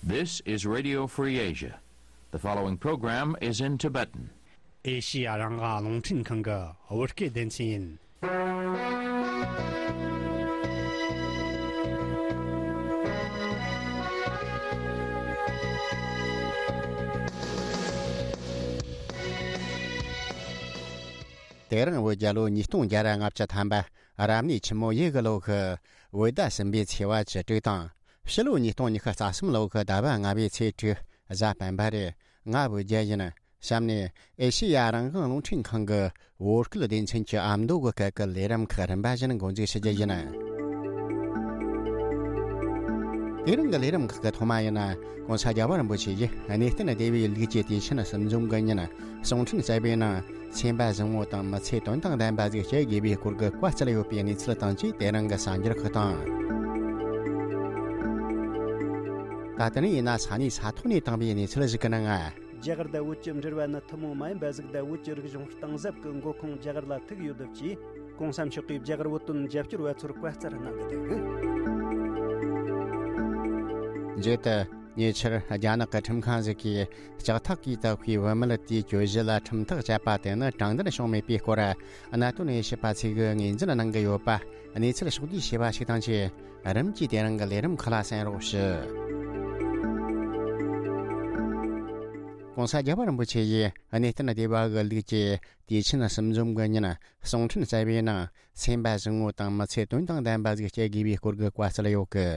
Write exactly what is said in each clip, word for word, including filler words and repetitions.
This is Radio Free Asia. The following program is in Tibetan. ཨེ་ཤི་ཡ་རང་དབང་རླུང་འཕྲིན་ཁང་གི་བོད་སྐད་སྡེ་ཚན་ཡིན། དེ་རིང་བོད་རྒྱལ་ལོ་ཉིས་སྟོང་བརྒྱ་ར་ལྔ་བཅུ་ཐམ་པ། རབ་གནས་ཆུ་མོ་ཡོས་གི་ལོ་གི་བོད་ཟླ་གསུམ་པའི་ཚེས་པ་བཅུ་དྲུག་དང་། ཕྱི་ལོ་ཉིས་སྟོང་ཉི་ཤུ་རྩ་གསུམ་ལོ་གི་ཟླ་བ་ལྔ་པའི་ཚེས་དྲུག་གཟའ་སྤེན་པ་རེད། ང་བོད་རྒྱལ་ཡིན། གཤམ་ནས་ཨེ་ཤེ་ཡ་རང་དབང་རླུང་འཕྲིན་ཁང་གི་བོད་སྐད་སྡེ་ཚན་གྱི་ཨ་མདོ་གི་སྐད་ཀྱི་ལས་རིམ་ཁག་རིམ་པ་བཞིན་འགོ་འཛུགས་ཞུ་རྒྱུ་ཡིན། དེ་རིང་གི་ལས་རིམ་ཁག་གི་ཐོག་མ་ཡིན་ན། ༸གོང་ས་རྒྱལ་བ་རིན་པོ་ཆེ་ཡིས་གནས་བརྟན་སྡེ་བའི་ལུགས་ཀྱི་དུས་ཆེན་གསུམ་འཛོམས་ཀྱི་ཉིན། གསུང་འཕྲིན་གསར་པའི་ནང་སེམས་པ་བཟང་བོ་དང་མི་ཚེ་དོན་དང་ལྡན་པ་ཟིག་སྐྱེལ་དགོས་པའི་སྐོར་གྱི་བཀའ་སྩལ་ཡོད་པའི་གནས་ཚུལ་དང་བཅས་དེ་རིང་གི་གསར་འགྱུར་ཁག་དང་། ད་ལྟ་ནས་ཡིན་ན་ས་གནས་ས་ཐོག་ནས་བཏང་བའི་གནས་ཚུལ་ཞིག་གི་ནང་། རྒྱ་གར་དང་བོད་ཀྱི་འབྲེལ་བ་ནི་ཐུན་མོང་མ་ཡིན་པ་ཟིག་དང་བོད་ཀྱི་རིག་གཞུང་གཏིང་ཟབ་ཀྱི་མགོ་ཁུངས་རྒྱ་གར་ལ་ཐུག་ཡོད་སྟབས་ཀྱིས། ༸གོང་ས་མཆོག་གིས་རྒྱ་གར་བོད་དོན་རྒྱབ་སྐྱོར་བ་ཚོར་བཀའ་སྩལ་གནང་གི་འདུག། མཇུག་ཏུ། ཉེ་ཆར་རྒྱ་ནག་གི་ཁྲིམས་ཁང་ཞིག་གིས་ལྕགས་ཐག་གིས་བཏགས་པའི་བུད་མེད་དེའི་གྱོད་གཞི་ལ་ཁྲིམས་ཐག་བཅད་པ་དེ་ནི་དྲང་བདེན་བྱུང་མེད་པའི་སྐོར། གནད་དོན་དབྱེ་ཞིབ་པ་ཚོས་ངོས་འཛིན་གནང་གི་ཡོད་པ། གནས་ཚུལ་ཕྱོགས་བསྡུས་བྱས་པ་ཞིག་དང་བཅས། རིམ་གྱིས་དེ་རིང་གི་ལས་རིམ་ཁག་ལ་གསན་རོགས་ཞུ། ༸གོང་ས་རྒྱལ་བ་རིན་པོ་ཆེ་ཡིས་གནས་བརྟན་སྡེ་བ་གི་ལུགས་ཀྱི་དུས་ཆེན་གསུམ་འཛོམས་ཀྱི་ཉིན། གསུང་འཕྲིན་གསར་པའི་ནང་སེམས་པ་བཟང་བོ་དང་མི་ཚེ་དོན་དང་ལྡན་པ་ཟིག་སྐྱེལ་དགོས་པའི་སྐོར་གྱི་བཀའ་སྩལ་ཡོད་གི།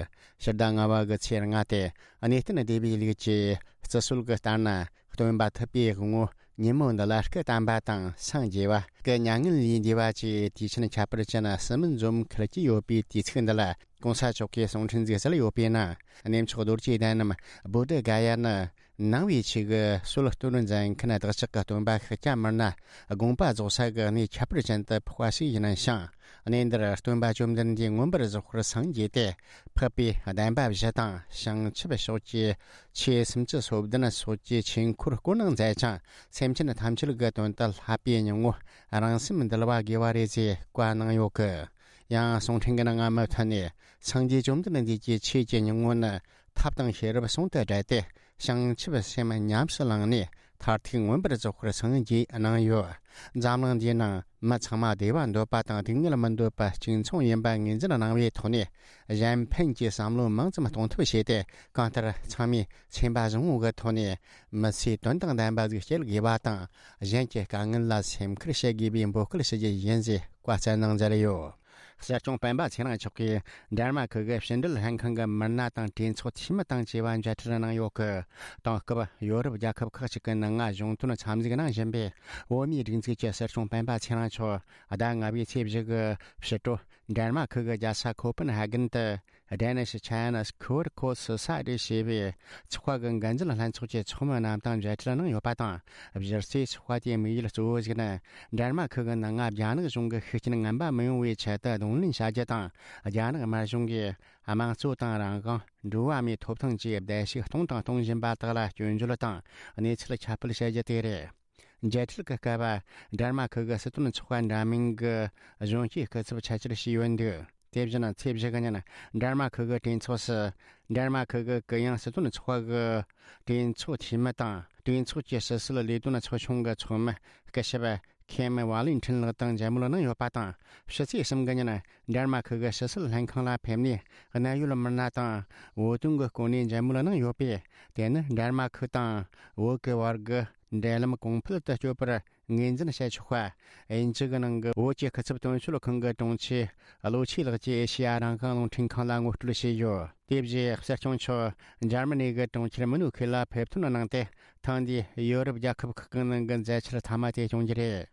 ཕྱི་ཟླ་ལྔ་པ་གི་ཚེས་ལྔ་སྟེ། གནས་བརྟན་སྡེ་བའི་ལུགས་ཀྱི་བརྩི་སྲོལ་གྱི་ལྟར་ན། སྟོན་པ་ཐུབ་པའི་དབང་པོ་ཉིན་མོ་འདི་ལ་སྐུ་བལྟམས་པ་དང་སངས་རྒྱས་པ། སྐུ་མྱ་ངན་ལས་འདས་པ་བཅས་དུས་ཆེན་ཁྱད་པར་ཅན་གསུམ་འཛོམས་འཁེལ་གྱི་ཡོད་པའི་དུས་ཚིགས་འདི་ལ། ༸གོང་ས་མཆོག་གིས་གསུང་འཕྲིན་ཟིག་གསལ་ཡོད་པའི་ནང་། གནས་མཆོག་རྡོ་རྗེ་གདན་ནམ་བོ་དྷི་ག་ཡ་ནི། ནང་པའི་ཆོས་ཀྱི་སྲོལ་གཏོད་མཛད་མཁན་བདག་ཅག་གི་སྟོན་པ་ཤཱཀྱ་མུ་ནེ་དགོངས་པ་རྫོགས་ས་གི་གནས་ཁྱད་པར་ཅན་དུ་ཕོག་པ་ཞིག་ཡིན་ཞིང་། གནས་འདིར་སྟོན་པ་བཅོམ་ལྡན་འདས་མངོན་པར་རྫོགས་པར་སངས་རྒྱས་ཏེ། འཕགས་པའི་བདེན་པ་བཞི་དང་བྱང་ཆུབ་ཕྱོགས་ཀྱི་ཆོས་སུམ་ཅུ་སོ་བདུན་སོགས་ཀྱི་ཆོས་འཁོར་བསྐོར་གནང་མཛད་ཅིང་། སེམས་ཅན་ཐམས་ཅད་ཀྱི་དོན་དུ་བསླབ་པའི་སྙིང་པོ་རང་སེམས་འདུལ་བ་དགེ་བ་རེད་ཅེས་བཀའ་གནང་ཡོད་གི། ཡང་གསུང་འཕྲིན་གྱི་ནང་མུ་མཐུད་ནས། སངས་རྒྱས་བཅོམ་ལྡན་འདས་ཀྱི་ཆོས་ཀྱི་སྙིང་པོ་ནི་ཐབས་དང་ཤེས་རབ་ཟུང་དུ་སྦྲེལ་ཏེ། བྱང་ཆུབ་སེམས་ཉམས་སུ་བླངས་ནས་མཐར་ཐུག་མངོན་པར་རྫོགས་པར་སངས་རྒྱས་གནང་ཡོད། འཛམ་གླིང་འདིའི་ནང་མི་ཚང་མ་བདེ་བ་འདོད་པ་དང་སྡུག་བསྔལ་མི་འདོད་པ་གཅིག་མཚུངས་ཡིན་པ་ངོས་འཛིན་གནང་བའི་ཐོག་ནས། གཞན་ཕན་གྱི་བསམ་བློ་མང་ཙམ་གཏོང་ཐབས་བྱས་ཏེ། གང་ལྟར་ཚང་མས་སེམས་པ་བཟང་བོ་གི་ཐོག་ནས་མི་ཚེ་དོན་དང་ལྡན་པ་ཟིག་སྐྱེལ་དགོས་པ་དང་། གཞན་གྱི་དཀའ་ངལ་ལ་སེམས་ཁུར་བྱེད་དགོས་པའི་འབོད་སྐུལ་ཞུ་རྒྱུ་ཡིན་ཞེས་བཀའ་སྩལ་གནང་མཛད་ཡོད། གསེར་གཅོང་སྤེན་པ་ཚེ་རིང་མཆོག་གིས་འབྲལ་མ་ཁུལ་གྱི་ཕྱི་འབྲེལ་ལྷན་ཁང་གི་མི་སྣ་དང་གྲོས་ཚོགས་འཐུས་མི་དང་བཅས་པ་མཇལ་འཕྲད་གནང་ཡོད་གི། དེང་སྐབས་ཡོ་རོབ་རྒྱལ་ཁབ་ཁག་ཅིག་གི་ནང་ང་གཞུང་དོན་འཚམས་གཟིགས་གནང་བཞིན་པའི་བོད་མིའི་སྒྲིག་འཛུགས་ཀྱི་གསེར་གཅོང་སྤེན་པ་ཚེ་རིང་མཆོག་ཟླ་ལྔ་པའི་ཚེས་བཞི་གི་ཕྱི་དྲོ་འབྲལ་མ་ཁུལ་གྱི་རྒྱལ་ས་ཁོ་པན་ཧ་གན་དུ། Danish China School Course Society ཞེས་པའི་ཚོགས་པ་གི་འགན་འཛིན་ལྷན་ཚོགས་ཀྱི་ཚོགས་མི་རྣམས་དང་མཇལ་འཕྲད་གནང་ཡོད་པ་དང་། གཞི་རྩའི་ཚོགས་པ་དེའི་དམིགས་ཡུལ་གཙོ་བོ་ཞིག་ནི། འབྲལ་མ་ཁུལ་གྱི་ནང་ང་རྒྱ་ནག་གཞུང་གི་ཤུགས་རྐྱེན་ངན་པ་མི་ཡོང་བའི་ཆེད་དུ་གདོང་ལེན་བྱ་རྒྱུ་དང་། རྒྱ་ནག་དམར་གཞུང་གིས་དམངས་གཙོ་དང་རང་དབང་། འགྲོ་བ་མིའི་ཐོབ་ཐང་བཅས་བརྡལ་བཤིག་གཏོང་དང་གཏོང་བཞིན་པ་དག་ལ་སྐྱོན་བརྗོད་དང་གནས་ཚུལ་ཁྱབ་སྤེལ་བྱ་རྒྱུ་དེ་རེད། མཇལ་འཕྲད་ཀྱི་སྐབས། འབྲལ་མ་ཁུལ་གྱི་སྲིད་དོན་ཚོགས་པ་འདྲ་མིན་གྱི་གཞོན་སྐྱེས་སྐུ་ཚབ་ཆེད་བཅར་བྱས་ཡོད་འདུག། དེ་བཞིན་ཚེས་བཞི་གི་ཉིན་འབྲལ་མ་ཁུལ་གྱི་གྲོས་ཚོགས་སུ། འབྲལ་མ་ཁུལ་གྱི་གུ་ཡངས་སྲིད་དོན་ཚོགས་པ་གི་གྲོས་ཚོགས་འཐུས་མི་དང་། གྲོས་ཚོགས་ཀྱི་ཕྱི་སྲིད་ལས་དོན་ཚོགས་ཆུང་གི་ཚོགས་མི་སྐུ་ཞབས་ཁེམ་ཝ་ལིན་ཁྲིན་ལགས་དང་མཇལ་མོལ་གནང་ཡོད་པ་དང་། ཕྱི་ཚེས་གསུམ་གི་ཉིན་འབྲལ་མ་ཁུལ་གྱི་ཕྱི་སྲིད་ལྷན་ཁང་ལ་ཕེབས་ནས། གནད་ཡོད་མི་སྣ་དང་བོད་དོན་གྱི་སྐོར་ནས་མཇལ་མོལ་གནང་ཡོད་པས། དེ་ནི་འབྲལ་མ་ཁུལ་དང་བོད་ཀྱི་བར་གྱི་འབྲེལ་ལམ་གོང་འཕེལ་དུ་སྐྱོད་པར་ངོས་འཛིན་བྱས་ཆོག་པ། དབྱིན་ཇི་གི་ནང་གི་བོད་ཀྱི་སྐུ་ཚབ་དོན་གཅོད་ཁང་གི་དྲུང་ཆེ་བློ་ཆོས་ལགས་ཀྱིས་ཨེ་ཤེ་ཡ་རང་དབང་རླུང་འཕྲིན་ཁང་ལ་ངོ་སྤྲོད་བྱས་ཡོད། དེ་བཞིན་གསེར་གཅོང་མཆོག་འཇར་མ་ནི་གི་གྲོང་ཁྱེར་མུ་ནུ་ཁེ་ལ་ཕེབས་ཐོན་གནང་སྟེ། ཐེངས་འདིའི་ཡོ་རོབ་རྒྱལ་ཁབ་ཁག་གི་ནང་གི་མཛད་འཆར་མཐའ་མ་དེ་སྐྱོང་རྒྱུ་རེད།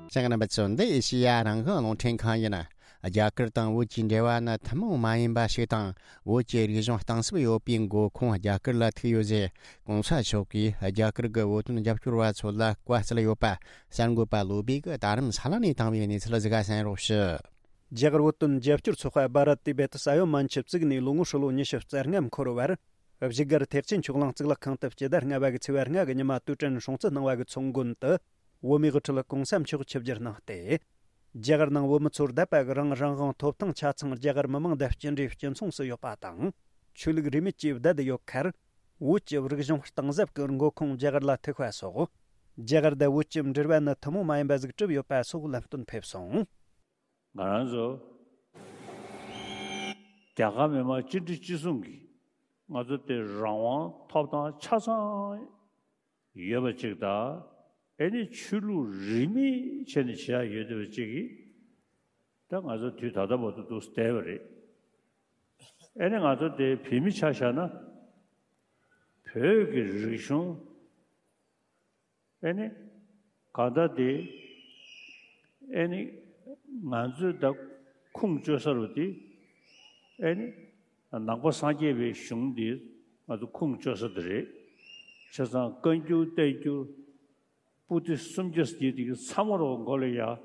ཅང་རྣམ་པ་ཚོ། འདི་ཨེ་ཤེ་ཡ་རང་དབང་རླུང་འཕྲིན་ཁང་ཡིན། རྒྱ་གར་དང་བོད་ཀྱི་འབྲེལ་བ་ནི་ཐུན་མོང་མ་ཡིན་པ་ཞིག་དང་། བོད་ཀྱི་རིག་གཞུང་གཏིང་ཟབ་ཡོད་པའི་མགོ་ཁུངས་རྒྱ་གར་ལ་ཐུག་ཡོད་ཟེར། གོང་ས་མཆོག་གིས་རྒྱ་གར་གྱི་བོད་དོན་རྒྱབ་སྐྱོར་བ་ཚོ་ལ་བཀའ་སྩལ་ཡོད་པ། གསར་འགོད་པ་བློ་བྷེ་གིས་རྡ་རམ་ས་ལ་ནས་བཏང་བའི་གནས་ཚུལ་ཟིག་ག་གསན་རོགས་ཞུ། རྒྱ་གར་བོད་དོན་རྒྱབ་སྐྱོར་ཚོགས་པ་བྷ་རད་ཏི་བེ་ཏི་ས་ཡོམ་མན་ཆད་བཙུགས་ནས་ལོ་ངོ་ཧྲིལ་བོ་ཉི་ཤུ་རྩ་ལྔ་འཁོར་བར། བཞུགས་སྒར་ཐེག་ཆེན་ཆོས་གླིང་གཙུག་ལག་ཁང་དུ་སྤྱི་ཟླ་ལྔ་པ་གི་ཚེས་པ་ལྔ་གི་ཉི་མ་དུས་དྲན་སྲུང་བརྩི་གནང་བ་གི་ཚོགས་མགོན་དུ། བོད་མིའི་དབུ་ཁྲིད་གོང་ས་མཆོག་ཆིབས་བསྒྱུར་གནང་སྟེ། རྒྱ་གར་ནང་བོད་མི་ཚོར་བསྡད་པ་གི་རང་རང་དབང་ཐོབ་ཐང་ཆ་ཚང་རྒྱ་གར་མི་མང་དང་གཅིག་འདྲེས་གཅིག་མཚུངས་སུ་ཡོད་པ་དང་། ཆོས་ལུགས་རིས་མེད་ཀྱིས་བསྡད་ཡོད་ཁར། བོད་ཀྱི་རིག་གཞུང་གཏིང་ཟབ་ཀྱི་འགོ་ཁུངས་རྒྱ་གར་ལ་ཐུག་པ་སོགས། རྒྱ་གར་དང་བོད་ཀྱི་འབྲེལ་བ་ནི་ཐུན་མོང་མ་ཡིན་པ་ཟིག་གྲུབ་ཡོད་པ་སོགས་ལམ་སྟོན་ཕེབས་སོང་། ང་རང་ཚོ་རྒྱ་གར་མི་མང་གཅིག་སྒྲིལ་གཅིག་མཚུངས་ཀྱིས་ང་ཚོ་དེ་རང་དབང་ཐོབ་ཐང་ཆ་ཚང་ཡོད་པ་ཅིག་དང་། ཨེ་ནི་ཆོས་ལུགས་རིས་མེད་བྱས་ནས་བྱེད་ཡ་ཡོད་བསྡད་པ་ཅིག་གིས། ད་ང་ཚོ་དུས་ད་ལྟ་བར་དུ་འདུག་བསྡད་པ་རེད། ཨེ་ནི་ང་ཚོ་དེ་བོད་མི་ཆ་བཞག་ན། བོད་ཀྱི་རིག་གཞུང་། ཨེ་ནི། གང་ལྟར་དེ། ཨེ་ནི། ང་ཚོས་ད་ཁུངས་བཅོལ་ས་རུ་དེ། ཨེ་ནི། ནང་པ་སངས་རྒྱས་པའི་གཞུང་འདི་ང་ཚོ་ཁུངས་བཅོལ་ས་དེ་རེད། བྱས་ཙང་བཀའ་འགྱུར་བསྟན་འགྱུར། པོ་ཏི་སུམ་བརྒྱ་ཟེར་དེ་གི་ཚང་མ་རོ་མགོ་ལ་ཡ། རྒྱ་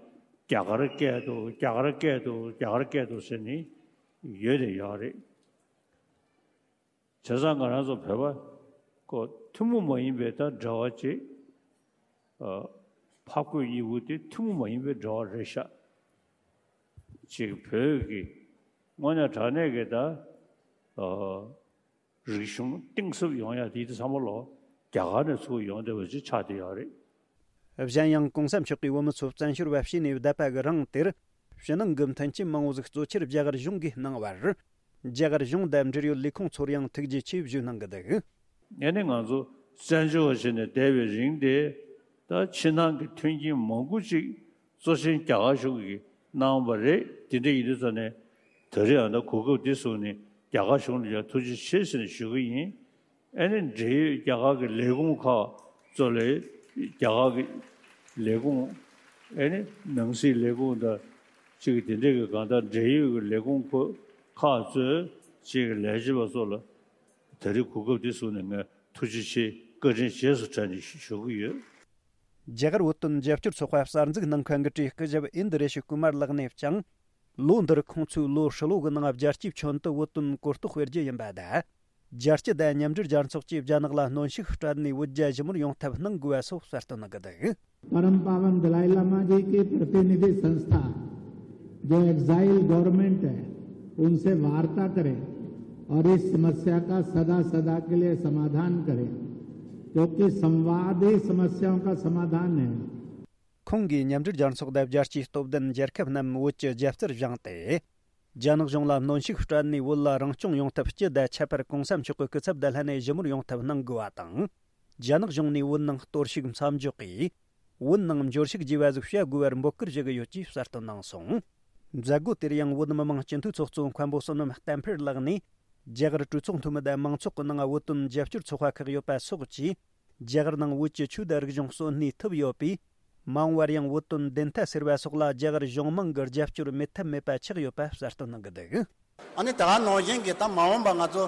གར་སྐད་དུ་རྒྱ་གར་སྐད་དུ་རྒྱ་གར་སྐད་དུ་ཟེར་ནི་ཡོད་དེ་ཡོད་རེད། བྱས་ཙང་ང་རང་ཚོ་བོད་པ་ཀོ་ཐུན་མོང་མ་ཡིན་པའི་ད་འབྲེལ་བ་ཅིག་ཨ། ཕ་བཀོད་གཉིས་པོ་དེ་ཐུན་མོང་མ་ཡིན་པའི་འབྲེལ་བ་རེད་ཤག་ཅིག་བོད་ཀྱི་དངོས་གནས་དྲང་གནས་ཀྱི་ད་ཨ། རིག་གཞུང་གཏིང་ཟབ་ཡོང་ཡ་དེ་དེ་ཚང་མ་ལོ་རྒྱ་གར་ནས་ཚུར་ཡོང་བསྡད་པ་ཅིག་ཆགས་བསྡད་ཡོད་རེད། གཞན་ཡང་གོང་ས་མཆོག་གིས་བོད་མི་ཚོ་བཙན་བྱོལ་བ་བྱས་ནས་བསྡད་པ་གི་རིང་དེར། ཕྱི་ནང་གི་མཐུན་རྐྱེན་མང་བོ་ཟིག་གཙོ་ཆེར་རྒྱ་གར་གཞུང་གིས་གནང་བར། རྒྱ་གར་གཞུང་དང་འབྲེལ་ཡོད་ལས་ཁུངས་ཚོར་ཡང་ཐུགས་རྗེ་ཆེ་ཞུ་གནང་གི་འདུག་ངས་ནི་ང་ཚོ་བཙན་བྱོལ་བ་བྱས་ནས་བསྡད་པའི་རིང་དེ། ད་ཕྱི་ནང་གི་མཐུན་རྐྱེན་མང་པོ་ཅིག་གཙོ་ཆེན་རྒྱ་གར་གཞུང་གིས་གནང་བ་རེད། དེ་འདྲ་ཡིན་དུས་ཙ་ནས་ད་རེས་ཨ་ད་གོ་སྐབས་འདི་བཟུང་ནས་རྒྱ་གར་གཞུང་ལ་ཡང་ཐུགས་རྗེ་ཆེ་ཟེར་ནས་ཞུ་གི་ཡིན། ཨ་ནི་འབྲེལ་ཡོད་རྒྱ་གར་གྱི་ལས་ཁུངས་ཁག་གཙོ་ལས་རྒྱ་གར་གྱི་ལས་ཁུངས། ཨ་ནི་ནང་སྲིད་ལས་ཁུངས་དང་གཅིག་གི་དེ་འདྲས་ཀྱི་གང་ལྟར་འབྲེལ་ཡོད་ཀྱི་ལས་ཁུངས་ཁག་གཙོས་གཅིག་གི་ལས་བྱེད་པ་ཚོ་ལ་ད་རེས་གོ་སྐབས་འདི་བཟུང་ནས་ངས་ཐུགས་རྗེ་ཆེ་བཀའ་དྲིན་རྗེས་སུ་དྲན་ནས་ཞུ་གི་ཡོད། རྒྱ་གར་བོད་དོན་རྒྱབ་སྐྱོར་ཚོགས་པ་གསར་འཛུགས་གནང་མཁན་གྱི་གྲས་སྐུ་ཞབས་ཨིན་དི་རེ་ཤི་ཀུ་མར་ལགས་ནས་ཀྱང་། ལོ་འདིར་ཁོང་ཚོས་ལོ་ཧྲིལ་བོ་གི་ནང་རྒྱལ་སྤྱིའི་ཁྱོན་དུ་བོད་དོན་གོ་རྟོགས་སྤེལ་རྒྱུ་ཡིན་པ་དང་། རྒྱལ་སྤྱི་དང་མཉམ་འབྲེལ་རྒྱལ་ཚོགས་ཀྱིས་རྒྱ་ནག་ལ་གནོན་ཤུགས་སྤྲད་ནས་བོད་རྒྱ་ཞི་མོལ་ཡོང་ཐབས་གནང་དགོས་པ་སོགས་གསལ་སྟོན་གནང་གི་འདུག परम पावन दलाई लामा जी की प्रतिनिधि संस्था, जो एग्जाइल गवर्नमेंट है, उनसे वार्ता करें और इस समस्या का सदा सदा के लिए समाधान करें, क्योंकि संवाद ही समस्याओं का समाधान है। ཁོང་གིས་མཉམ་འབྲེལ་རྒྱལ་ཚོགས་དང་རྒྱལ་སྤྱིའི་སྟོབས་ལྡན་རྒྱལ་ཁབ་རྣམས་བོད་ཀྱི་རྒྱབ་རྩར་བཞེངས་ཏེ། རྒྱ་ནག་གཞུང་ལ་གནོན་ཤུགས་སྤྲད་ནས་བོད་ལ་རང་སྐྱོང་ཡོང་ཐབས་སྤྱི་དང་ཁྱད་པར་གོང་ས་མཆོག་གི་སྐུ་ཚབ་དང་ལྷན་ནས་ཞི་མོལ་ཡོང་ཐབས་གནང་དགོས་པ་དང་། རྒྱ་ནག་གཞུང་ནས་བོད་ནང་གཏོར་བཤིག་མཚམས་འཇོག་གིས། བོད་ནང་འབྱོར་ཕྱུག་རྒྱས་པ་ཟིག་བྱ་དགོས་པར་འབོད་སྐུལ་ཞུ་གི་ཡོད་ཅེས་གསལ་སྟོན་གནང་སོང་། མཛད་སྒོ་དེར་ཡང་བོད་མི་མང་སྤྱི་འཐུས་ཚོགས་གཙོ་མཁན་པོ་བསོད་ནམས་བསྟན་འཕེལ་ལགས་ནས། རྒྱ་གར་གྲོས་ཚོགས་འཐུས་མི་དང་མང་ཚོགས་ཀྱི་ནང་བོད་དོན་རྒྱབ་སྐྱོར་ཚོགས་པ་ཁག་ཡོད་པ་སོགས་ཀྱིས། རྒྱ་གར་ནང་བོད་ཀྱི་ཆོས་དང་རིག་གཞུང་གསོན་གནས་ཐུབ་ཡོད་པས། མ་འོངས་པར་ཡང་བོད་དོན་བདེན་མཐའ་སེལ་བ་སོགས་ལ་རྒྱ་གར་གཞུང་མང་གི་རྒྱབ་སྐྱོར་མེད་ཐབས་མེད་པ་ཆགས་ཡོད་པ་གསལ་སྟོན་གནང་གི་འདུག་ཨ་ནི་དེ་ག་ནང་བཞིན་གྱི་ད་མ་འོངས་པ་ང་ཚོ་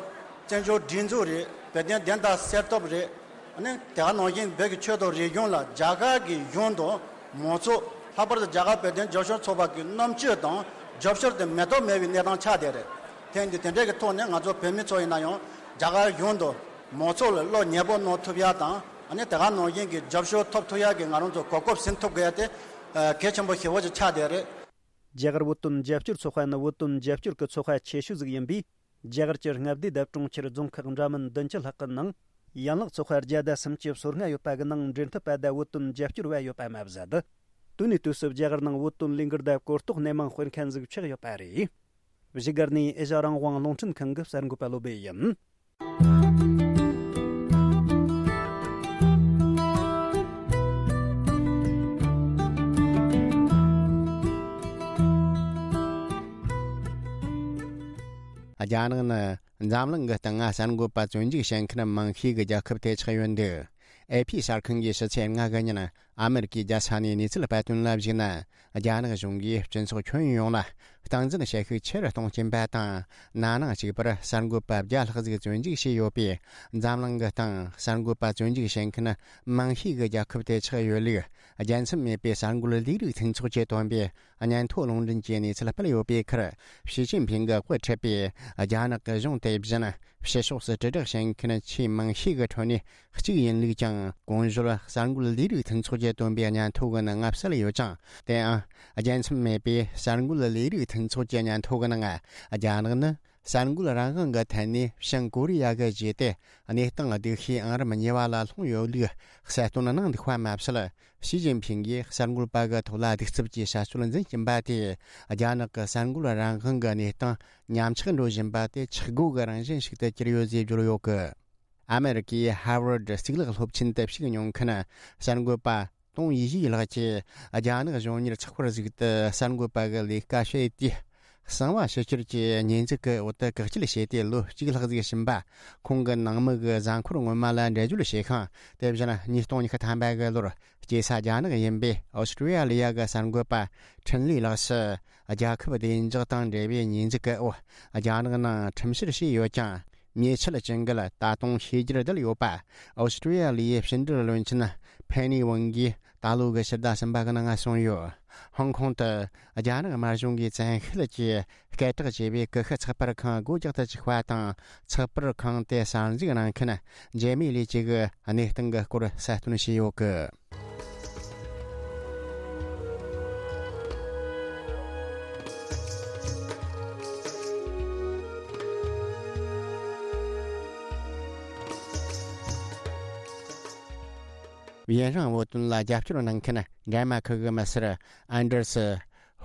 བཙན་བྱོལ་སྒྲིག་འཛུགས་རེད། བོད་དོན་བདེན་མཐའ་གསལ་ཐབས་རེད། ཨ་ནི་དེ་ག་ནང་བཞིན་བོད་ཀྱི་ཆོས་དང་རིག་གཞུང་ལ་རྒྱ་གར་གྱི་གཞུང་དང་མང་ཚོགས། ལྷག་པར་དུ་རྒྱ་གར་བོད་དོན་རྒྱབ་སྐྱོར་ཚོགས་པ་གི་རྣམ་དཔྱོད་དང་རྒྱབ་སྐྱོར་དེ་མེ་ཏོག་མེད་པའི་གནས་སྟངས་ཆགས་བསྡད་རེད། དེ་འདི་དེ་འདྲའི་གི་ཐོག་ནས་ང་ཚོ་བོད་མི་ཚོ་ཡིན་ན་ཡང་རྒྱ་གར་གཞུང་དང་མང་ཚོགས་ལ་བློ་ཉེ་པོ་གནང་ཐུབ་ཡ་དང་། ཨ་ནི་དེ་ག་ནང་བཞིན་གྱི་རྒྱབ་སྐྱོར་ཐོབ་ཐུབ་ཡ་གི་ང་རང་ཚོ་གོ་སྐབས་ཟིན་ཐུབ་དགོས་ཡ་དེ་གལ་ཆེན་པོ་ཞེ་པོ་ཅིག་ཆགས་བསྡད་རེད། རྒྱ་གར་བོད་དོན་རྒྱབ་སྐྱོར་ཚོགས་པ་ནི་བོད་དོན་རྒྱབ་སྐྱོར་གྱི་ཚོགས་པ་ཆེ་ཤོས་ཟིག་ཡིན་པས། རྒྱ་གར་གྱི་མངའ་སྡེ་དང་གྲོང་ཁྱེར་རྫོང་ཁག་འདྲ་མིན་བདུན་ཅུ་ལྷག་གི་ནང་ཡན་ལག་ཚོགས་པ་བརྒྱ་དང་སུམ་ཅུ་སོ་ལྔ་ཡོད་པ་གི་ནང་འབྲེལ་མཐུད་པ་དང་བོད་དོན་རྒྱབ་སྐྱོར་བ་ཡོད་པ་མ་ཟད། དུས་ནས་དུས་སུ་རྒྱ་གར་ནང་བོད་དོན་ལས་འགུལ་དང་གོ་རྟོགས་སྣེ་མང་སྤེལ་མཁན་ཟིག་ཆགས་ཡོད་པ་རེད། བཞུགས་སྒར་ནས་ཨེ་ཤ་རང་དབང་རླུང་འཕྲིན་ཁང་གི་གསར་འགོད་པ་བློ་བྷེ་ཡིན། རྒྱ་ནག་ནི་འཛམ་གླིང་གི་སྟེང་ང་གསར་འགོད་པ་བཙོན་འཇུག་བྱེད་མཁན་མང་ཤོས་ཀྱི་རྒྱལ་ཁབ་དེ་ཆགས་ཡོད་འདུག་ཨེ་ཕི་གསར་ཁང་གིས་ཕྱི་ཚེས་ལྔ་གི་ཉིན་ཨ་མེ་རི་ཀའི་རྒྱལ་ས་ནས་གནས་ཚུལ་སྤེལ་དོན་ལ་གཞིགས་ན། རྒྱ་ནག་གཞུང་གིས་སྤྱི་ཚོགས་ཁྱོན་ཡོངས་ལ་ སྟངས་འཛིན་བྱེད་ཤུགས་ཆེ་རུ་གཏོང་གྱིན་པ་དང་། ན་ནིང་གཅིག་པར་གསར་འགོད་པ་བརྒྱ་ལྷག་ཟིག་བཙོན་འཇུག་བྱས་ཡོད་པས། འཛམ་གླིང་གི་སྟེང་གསར་འགོད་པ་བཙོན་འཇུག་བྱེད་མཁན་མང་ཤོས་ཀྱི་རྒྱལ་ཁབ་དེ་ཆགས་ཡོད་ལུགས། རྒྱལ་མཚམས་མེད་པའི་གསར་འགོད་ལས་རིགས་མཐུན་ཚོགས་ཀྱིས་བཏོན་པའི་སྙན་ཐོ་ལུང་འདྲེན་གྱི་གནས་ཚུལ་སྤེལ་ཡོད་པའི་ཁར། ཞི་ཅིན་ཕིང་གིས་དབུ་ཁྲིད་པའི་རྒྱ་ནག་གི་གཞུང་དེ་བཞིན་ཕྱི་ཕྱོགས་སུ་དྲིལ་བསྒྲགས་བྱེད་མཁན་ཆེས་མང་ཤོས་ཀྱི་ཁྲོད་ནས་གཅིག་ཡིན་ལུགས་ཀྱང་། གོང་ཞུས་གསར་འགོད་ལས་རིགས་མཐུན་ཚོགས་ཀྱིས་བཏོན་པའི་སྙན་ཐོ་གི་ནང་གསལ་ཡོད་ཅིང་། དེའང་རྒྱལ་མཚམས་མེད་པའི་གསར་འགོད་ལས་རིགས་མཐུན་ཚོགས་ཀྱི་སྙན་ཐོ་གི་ནང་། རྒྱ་ནག་ནི་གསར་འགོད་རང་དབང་གི་ཐད་ནས་བྱང་ཀོ་རི་ཡ་གི་རྗེས་དེད་གནས་སྟངས་སྡུག་ཤོས་ཨང་རིམ་གཉིས་པ་ལ་ལྷུང་ཡོད་ལུགས་གསལ་སྟོན་གནང་འདུག་པ་མ་ཟད། ཞི་ཅིན་ཕིང་གིས་གསར་འགོད་པ་གི་ཐོག་ལ་གདུག་རྩུབ་ཀྱི་བྱ་སྤྱོད་འཛིན་གྱིན་པ་དེས། རྒྱ་ནག་གི་གསར་འགོད་རང་དབང་གི་གནས་སྟངས་ཉམས་ཆག་འགྲོ་བཞིན་པ་དེ་ཆག་སྒོ་གི་རང་བཞིན་ཞིག་ཏུ་གྱུར་ཡོད་ཅེས་བརྗོད་ཡོད་གི། ཨ་མེ་རི་ཀའི་ཧར་ཝར་ཌི་གཙུག་ལག་སློབ་ཆེན་དུ་ཞུགས་མྱོང་མཁན་གསར་འགོད་པ་ཏོང་ཡེ་ཤེས་ལགས་ཀྱིས། རྒྱ་ནག་གཞུང་གཉེར་ཚགས་པར་ཟིག་ཏུ་གསར་འགོད་པ་གི་ལས་ཀ་བྱེད་དུས། གསང་བ་ཕྱི་བསྐྱུར་གྱི་ཉེས་འཛུགས་ཀྱི་འོག་ཏུ་བཀག་སྐྱིལ་བྱས་ཏེ་ལོ་གཅིག་ལྷག་ཟིག་ཕྱིན་པ། ཁོང་གི་ནང་མི་གི་གཟའ་འཁོར་སྔོན་མ་ལ་འགྲེལ་བརྗོད་བྱས་ཤིང་། དེ་བཞིན་ཉིས་སྟོང་ཉི་ཤུ་ཐམ་པ་གི་ལོར་སྐྱེས་ས་རྒྱ་ནག་ཡིན་པའི་ཨོ་སི་ཀྲི་ཡ་ལི་ཡ་གི་གསར་འགོད་པ་ཁྲིན་ལི་ལགས་སུ། རྒྱལ་ཁབ་བདེ་འཇགས་དང་འབྲེལ་བའི་ཉེས་འཛུགས་ཀྱི་འོག་རྒྱ་ནག་ནང་ཁྲིམས་བཤེར་བྱས་ཡོད་ཀྱང་། ཉེས་ཆད་ཅན་གྱི་ད་དུང་ཤེས་རྒྱར་བསྡད་ཡོད་པ། ཨོ་སི་ཀྲི་ཡ་ལི་ཡའི་ཕྱི་འབྲེལ་བློན་ཆེན་ཕེ་ནི་ཝང་གིས་ད་ལོ་གི་ཕྱི་ཟླ་གསུམ་པ་གི་ནང་གསུངས་ཡོད། ཧོང་ཀོང་དུ་རྒྱ་ནག་དམར་གཞུང་གིས་བཙན་ཤེད་ཀྱིས་སྐད་གྲགས་ཆེ་བའི་ཀུ་ཤུ་ཚགས་པར་ཁང་སྒོ་རྒྱག་ཏུ་བཅུག་པ་དང་། ཚགས་པར་ཁང་དེ་གསར་འཛུགས་གནང་མཁན་འཇལ་མི་ལི་ཅི་གི་གནས་སྟངས་ཀྱི་སྐོར་གསལ་སྟོན་བྱས་ཡོད་གི། ཡུན་རིང་བོད་དོན་ལ་རྒྱབ་སྐྱོར་གནང་མཁན་ཌེན་མ་ཁུ་གི་མི་སེར་ཨན་ཌར་སི་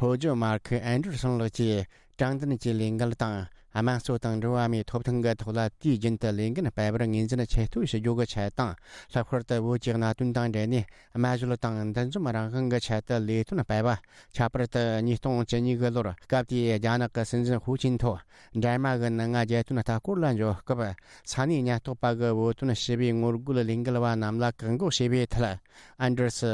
ཧོ་ཇོ་མར་ཁུ་ཨན་ཌར་སོན་ལགས་ཀྱིས། དྲང་བདེན་གྱི་ལས་འགུལ་དང་དམངས་གཙོ་དང་འགྲོ་བ་མིའི་ཐོབ་ཐང་གི་ཐོག་ལ་དུས་རྒྱུན་དུ་ལས་འགན་སྤེལ་བར་ངོས་འཛིན་ཆེ་མཐོ་ཞུ་རྒྱུ་གི་ཆེད་དང་། ལྷག་པར་དུ་བོད་ཀྱི་གནད་དོན་དང་འབྲེལ་ནས་སྨྲ་བརྗོད་དང་འདུ་འཛོམས་རང་དབང་གི་ཆེད་དུ་ལས་དོན་སྤེལ་བ། ཁྱད་པར་དུ་ཉིས་སྟོང་བཅུ་གཉིས་གི་ལོར་སྐབས་དེའི་རྒྱ་ནག་གི་སྲིད་འཛིན་ཧུའུ་ཅིན་ཐོ་འདྲ་མ་གི་ནང་རྒྱལ་དོན་ལྟ་སྐོར་ལ་འབྱོར་སྐབས། ས་གནས་ཉེན་རྟོག་པ་གི་བོད་དོན་ཞི་བའི་ངོ་རྒོལ་ལས་འགུལ་བ་རྣམས་ལ་བཀག་འགོག་བྱས་པའི་ཐད། ཨན་ཌར་སི་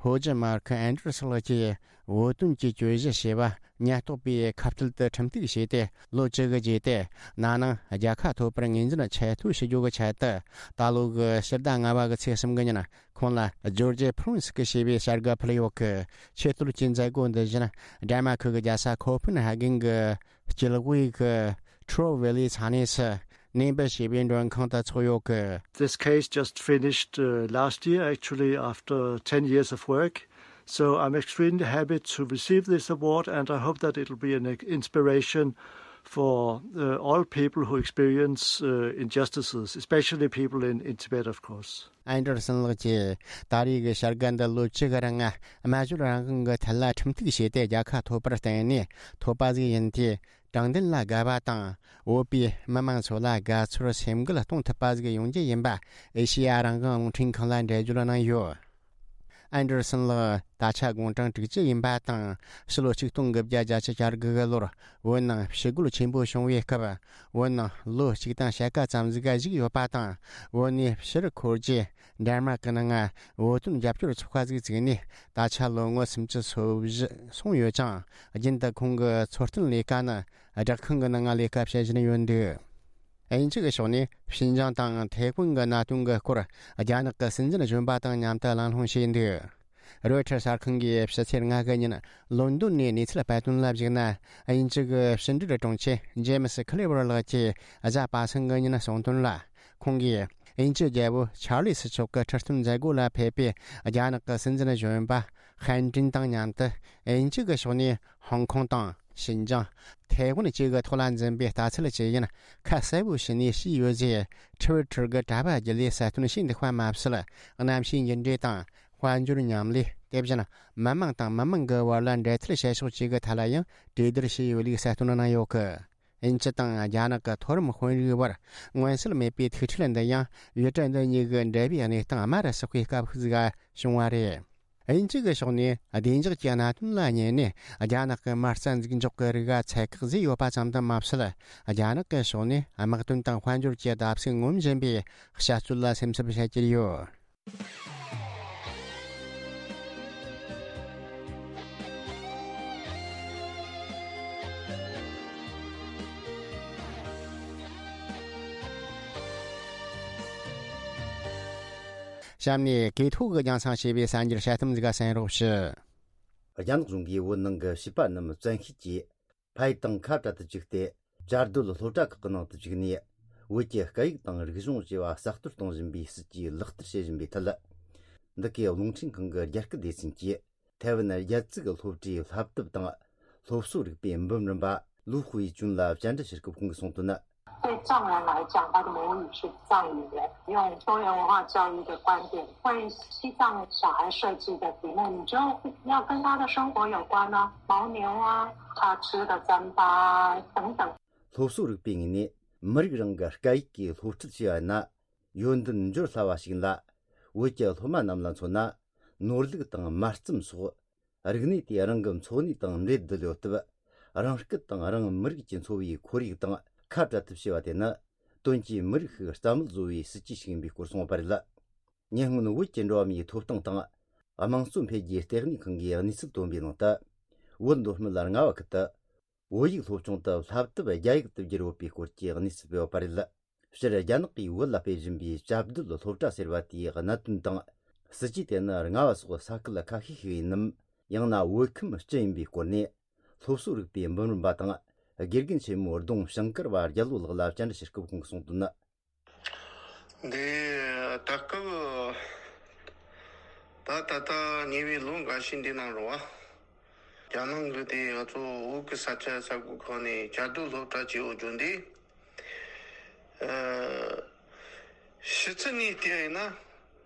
ཧོ་ཇི་མར་ཁི་ཨན་ཌར་སི་ལགས་ཀྱིས་བོད་དོན་གྱི་གྱོད་གཞི་ཞེས་པ་ཉེན་རྟོག་པས་ཁ་གཏད་དུ་ཁྲིམས་གཏུག་བྱས་ཏེ། ལོ་བཅུ་གི་རྗེས་ཏེ་ན་ནིང་རྒྱལ་ཁ་ཐོབ་པར་ངོས་འཛིན་ཆེ་མཐོ་ཞུ་རྒྱུ་གི་ཆེད་དུ། ད་ལོ་གི་ཕྱི་ཟླ་ལྔ་པ་གི་ཚེས་གསུམ་གི་ཉིན་ཁོང་ལ་ཇོར་ཇི་ཕུ་རུན་སི་ཀི་ཞེས་པའི་བྱ་དགའ་ཕུལ་ཡོད་གི། ཆེས་མཐོའི་མཛད་སྒོ་འདི་བཞིན་ཌེན་མ་ཁུ་གི་རྒྱལ་ས་ཁོ་ཕེན་ཧ་གན་གི་སྐྱིད་དབུས་ཀྱི་ཁྲོ་ཝེ་ལི་ས་གནས་སུ་ནེམ་པི་ཞེས་པའི་མགྲོན་ཁང་དུ་འཚོགས་ཡོད་གི། This case just finished uh, last year, actually, after ten years of work. So I'm extremely happy to receive this award, and I hope that it'll be an inspiration for uh, all people who experience uh, injustices, especially people in, in Tibet, of course. ཨན་ཌར་སན་ལགས་ཀྱིས་ད་རེས་ཀྱི་བྱ་དགའ་འདི་ལོ་བཅུ་གི་རིང་སྨྲ་བརྗོད་རང་དབང་གི་ཐད་ལ་ཁྲིམས་གཏུག་བྱས་ཏེ་རྒྱལ་ཁ་ཐོབ་པར་བརྟེན་ནས་ཐོབ་པ་ཟིག་ཡིན་ཏེ། དྲང་བདེན་ལ་དགའ་བ་དང་། བོད་པའི་མི་མང་ཚོ་ལ་དགའ་ཚོར་སེམས་འགུལ་གཏོང་ཐུབ་པ་ཟིག་ཡོང་རྒྱུ་ཡིན་པ་ཨེ་ཤེ་ཡ་རང་དབང་རླུང་འཕྲིན་ཁང་ལ་འགྲེལ་བརྗོད་གནང་ཡོད། ཨན་ཌར་སན་ལགས་ད་ཆ་དགུང་གྲངས་དྲུག་ཅུ་ཡིན་པ་དང་། ཕྱི་ལོ་ཆིག་སྟོང་དགུ་བརྒྱ་བརྒྱད་ཅུ་གྱ་དགུ་གི་ལོར་བོད་ནང་ཞི་རྒོལ་ཆེན་པོ་བྱུང་བའི་སྐབས། བོད་ནང་ལོ་གཅིག་དང་ཕྱེད་ཀ་ཙམ་ཟིག་བཞུགས་ཡོད་པ་དང་། བོད་ནས་ཕྱིར་འཁོར་རྗེས་ཌེན་མར་ཀི་ནང་བོད་དོན་རྒྱབ་སྐྱོར་ཚོགས་པ་ཟིག་བཙུགས་ནས་ད་ཆ་ལོ་ངོ་སུམ་ཅུ་སོ་བཞི་སོང་ཡོད་ཅིང་། རྒྱུན་དུ་ཁོང་གི་འཚོ་རྟེན་ལས་ཀ་ནི་སྦྲག་ཁང་གི་ནང་ལས་ཀ་བྱེད་བཞིན་ཡོད་འདུག་དབྱིན་ཇི་གི་ཕྱོགས་ནས་ཤིན་ཅང་དང་ཐའེ་ཝན་གྱི་གནད་དོན་གྱི་སྐོར་རྒྱ་ནག་གི་སྲིད་འཛིན་གཞོན་པ་དང་མཉམ་དུ་གླེང་སློང་བྱས་འདུག་རོའི་ཊར་གསར་ཁང་གིས་ཕྱི་ཚེས་ལྔ་གི་ཉིན་ལོན་ཌོན་ནས་གནས་ཚུལ་སྤེལ་དོན་ལ་གཞིགས་ན། དབྱིན་ཇི་གི་ཕྱི་འབྲེལ་དྲུང་ཆེ་ཇེ་མི་སི་ཁི་ལེ་ཝར་ལགས་ཀྱིས་གཟའ་པ་སངས་གི་ཉིན་གསུངས་དོན་ལ། ཁོང་གིས་དབྱིན་ཇི་རྒྱལ་པོ་ཆར་ལི་སི་མཆོག་གི་ཁྲི་སྟོན་མཛད་སྒོ་ལ་ཕེབས་པའི་རྒྱ་ནག་གི་སྲིད་འཛིན་གཞོན་པ་ཧན་ཀྲིན་དང་མཉམ་དུ་དབྱིན་ཇི་གི་ཕྱོགས་ནས་ཧོང་ཀོང་དང་། ཤིན་ཅང་། ཐའེ་ཝན་བཅས་ཀྱི་ཐོག་ལ་འཛིན་པའི་ལྟ་ཚུལ་ཇི་ཡིན་ཁ་གསལ་པོ་ཞུས་ནས་བཤད་ཡོད་ཅེས་ཊི་ཝི་ཊར་གྱི་དྲ་བ་བརྒྱུད་ལས་གསལ་སྟོན་བྱས་འདུག་པ་མ་ཟད། གནམ་གཤིས་འགྱུར་འགྲོས་དང་། དཔལ་འབྱོར་མཉམ་ལས། དེ་བཞིན་མི་དམངས་དང་མི་དམངས་ཀྱི་བར་ལ་འབྲེལ་མཐུད་བྱེད་ཕྱོགས་བཅས་ཀྱི་ཐད་ལ་ཡང་གྲོས་བསྡུར་བྱས་ཡོད་ལུགས་གསལ་སྟོན་གནང་ཡོད་གི། དབྱིན་ཇི་དང་རྒྱ་ནག་གི་མཐོ་རིམ་དཔོན་རིགས་བར་མངོན་གསལ་མེད་པའི་ཐུག་འཕྲད་འདི་ཡང་ཡུལ་གྲུ་འདི་གཉིས་ཀྱི་འབྲེལ་བའི་གནས་སྟངས་དམའ་རུ་སོག་པའི་སྐབས་ཤིག་བྱུང་བ་རེད། དབྱིན་ཇི་གི་ཕྱོགས་ནས་བདེ་འཇགས་ཀྱི་གནད་དོན་ལ་བསྙད་ནས་རྒྱ་ནག་གི་མ་རྩ་འཛུགས་འཇོག་གི་རིགས་ལ་ཚད་བཀག་བཟོས་ཡོད་པ་ཙམ་དུ་མ་ཟད། རྒྱ་ནག་གི་ཕྱོགས་ནས་དམག་དོན་དང་དཔལ་འབྱོར་གྱི་བརྡབ་གསིག་ངོམ་བཞིན་པའི་བྱ་སྤྱོད་ལ་སེམས་འཚབ་བྱེད་ཀྱི་ཡོད། གཤམ་ནས་གོས་ཐོག་གི་རྒྱང་སྲིང་བྱས་པའི་གསར་འགྱུར་དཔྱད་གཏམ་ཟིག་ག་གསན་རོགས་ཞུ། རྒྱ་ནག་གཞུང་གིས་བོད་ནང་གི་བྱིས་པ་རྣམས་བཙན་ཤེད་ཀྱིས་ཕ་ཡུལ་དང་ཁ་བྲལ་དུ་བཅུག་སྟེ། བཅའ་སྡོད་སློབ་གྲྭ་ཁག་གི་ནང་དུ་བཅུག་ནས། བོད་ཀྱི་སྐད་ཡིག་དང་རིག་གཞུང་བཅས་པ་གསར་གཏོད་གཏོང་བཞིན་པའི་སྲིད་ཇུས་ལག་བསྟར་བྱེད་བཞིན་པའི་ཐད། འདི་གའི་རླུང་འཕྲིན་ཁང་གི་རྒྱ་སྐད་སྡེ་ཚན་གྱིས། ཐའེ་ཝན་རྒྱལ་ཙིག་གི་སློབ་གྲྭའི་བསླབ་དེབ་དང་སློབ་གསོ་རིག་པའི་འབུམ་རམས་པ་ལུའུ་ཧུའེ་ཅུན་ལ་བཅར་འདྲི་ཞུ་སྐབས་ཁོང་གིས་གསུངས་དོན་ནི། 对藏人来讲，他的母语是藏语言。用多元文化教育的观点，为西藏小孩设计的题目，你就要跟他的生活有关啊，牦牛啊，他吃的糌粑啊等等。 སློབ་གསོ་རིག་པའི་ངོས་ནས་མི་རིགས་རང་གི་སྐད་ཡིག་གིས་སློབ་ཁྲིད་བྱས་པ་ན། ཡོན་ཏན་འབྱོར་སླ་བ་ཞིག་ཡིན་ལ། བོད་ཀྱི་སློབ་མ་རྣམས་ལ་མཚོན་ན། ནོར་ལུག་དང་མར་རྩམ་སོགས་རིག་གནས་དེ་རང་གི་འཚོ་གནས་དང་འབྲེལ་བསྡད་ཡོད་སྟབས། རང་སྐད་དང་རང་མི་རིགས་ཀྱི་འཚོ་བའི་ཁོར་ཡུག་དང་ཁ་བྲལ་ཐབས་བྱས་པ་དེ་ནི། དོན་གྱིས་མི་རིགས་ཤིག་རྩ་མེད་བཟོ་བའི་སྲིད་ཇུས་ཤིག་ཡིན་པའི་སྐོར་གསུངས་པ་རེད། ཉེ་སྔོན་བོད་ཀྱི་འགྲོ་བ་མིའི་ཐོབ་ཐང་དང་། དམངས་གཙོ་འཕེལ་རྒྱས་ལྟེ་གནས་ཁང་གིས་གནས་ཚུལ་བཏོན་པའི་ནང་དུ། བོད་མདོ་སྨད་རྔ་བ་ཁུལ་དུ། བོད་ཡིག་སློབ་སྦྱོང་དུ་བསླབ་དེབ་རྒྱ་ཡིག་ཏུ་བསྒྱུར་ཡོད་པའི་སྐོར་གྱི་གནས་ཚུལ་སྤེལ་བ་རེད། སྤྱིར་རྒྱ་ནག་གིས་བོད་ལ་སྤེལ་བཞིན་པའི་བཅའ་སྡོད་སློབ་གྲྭ་ཟེར་བ་དེའི་གནད་དོན་དང་། སྲིད་ཇུས་དེ་ནི་རྔ་བ་སོགས་ས་ཁུལ་ཁ་ཤས་ཤིག་ཡིན་ནམ། ཡང་ན་བོད་ཁམས་སྤྱི་ཡིན་པའི་སྐོར་ནས། སློབ་གསོ་རིག་པའི་འབུམ་རམས་པ་དང་། དགེ་རྒན་ཆེན་མོ་ལྡོང་ཞིང་དཀར་བ་རྒྱལ་ལོ་ལགས་ལ་བཅར་འདྲི་ཞུ་སྐབས་ཁོང་གིས་གསུངས་དོན་ནི། འདི་ད་སྐབས་ད་ད་ལྟ་ཉེ་བའི་ལོ་འགའ་ཤས་འདི་ནང་རུ་བ། རྒྱ་ནང་གི་དེ་ང་ཚོ་བོད་ཀྱི་ས་ཆ་ས་ཁུལ་ཁག་ནས་བཅའ་སྡོད་སློབ་གྲྭ་བྱེད་འོ་བརྗོད་འདི། ཨ། ཕྱི་ཚུལ་ནས་བལྟས་ཡིན་ན་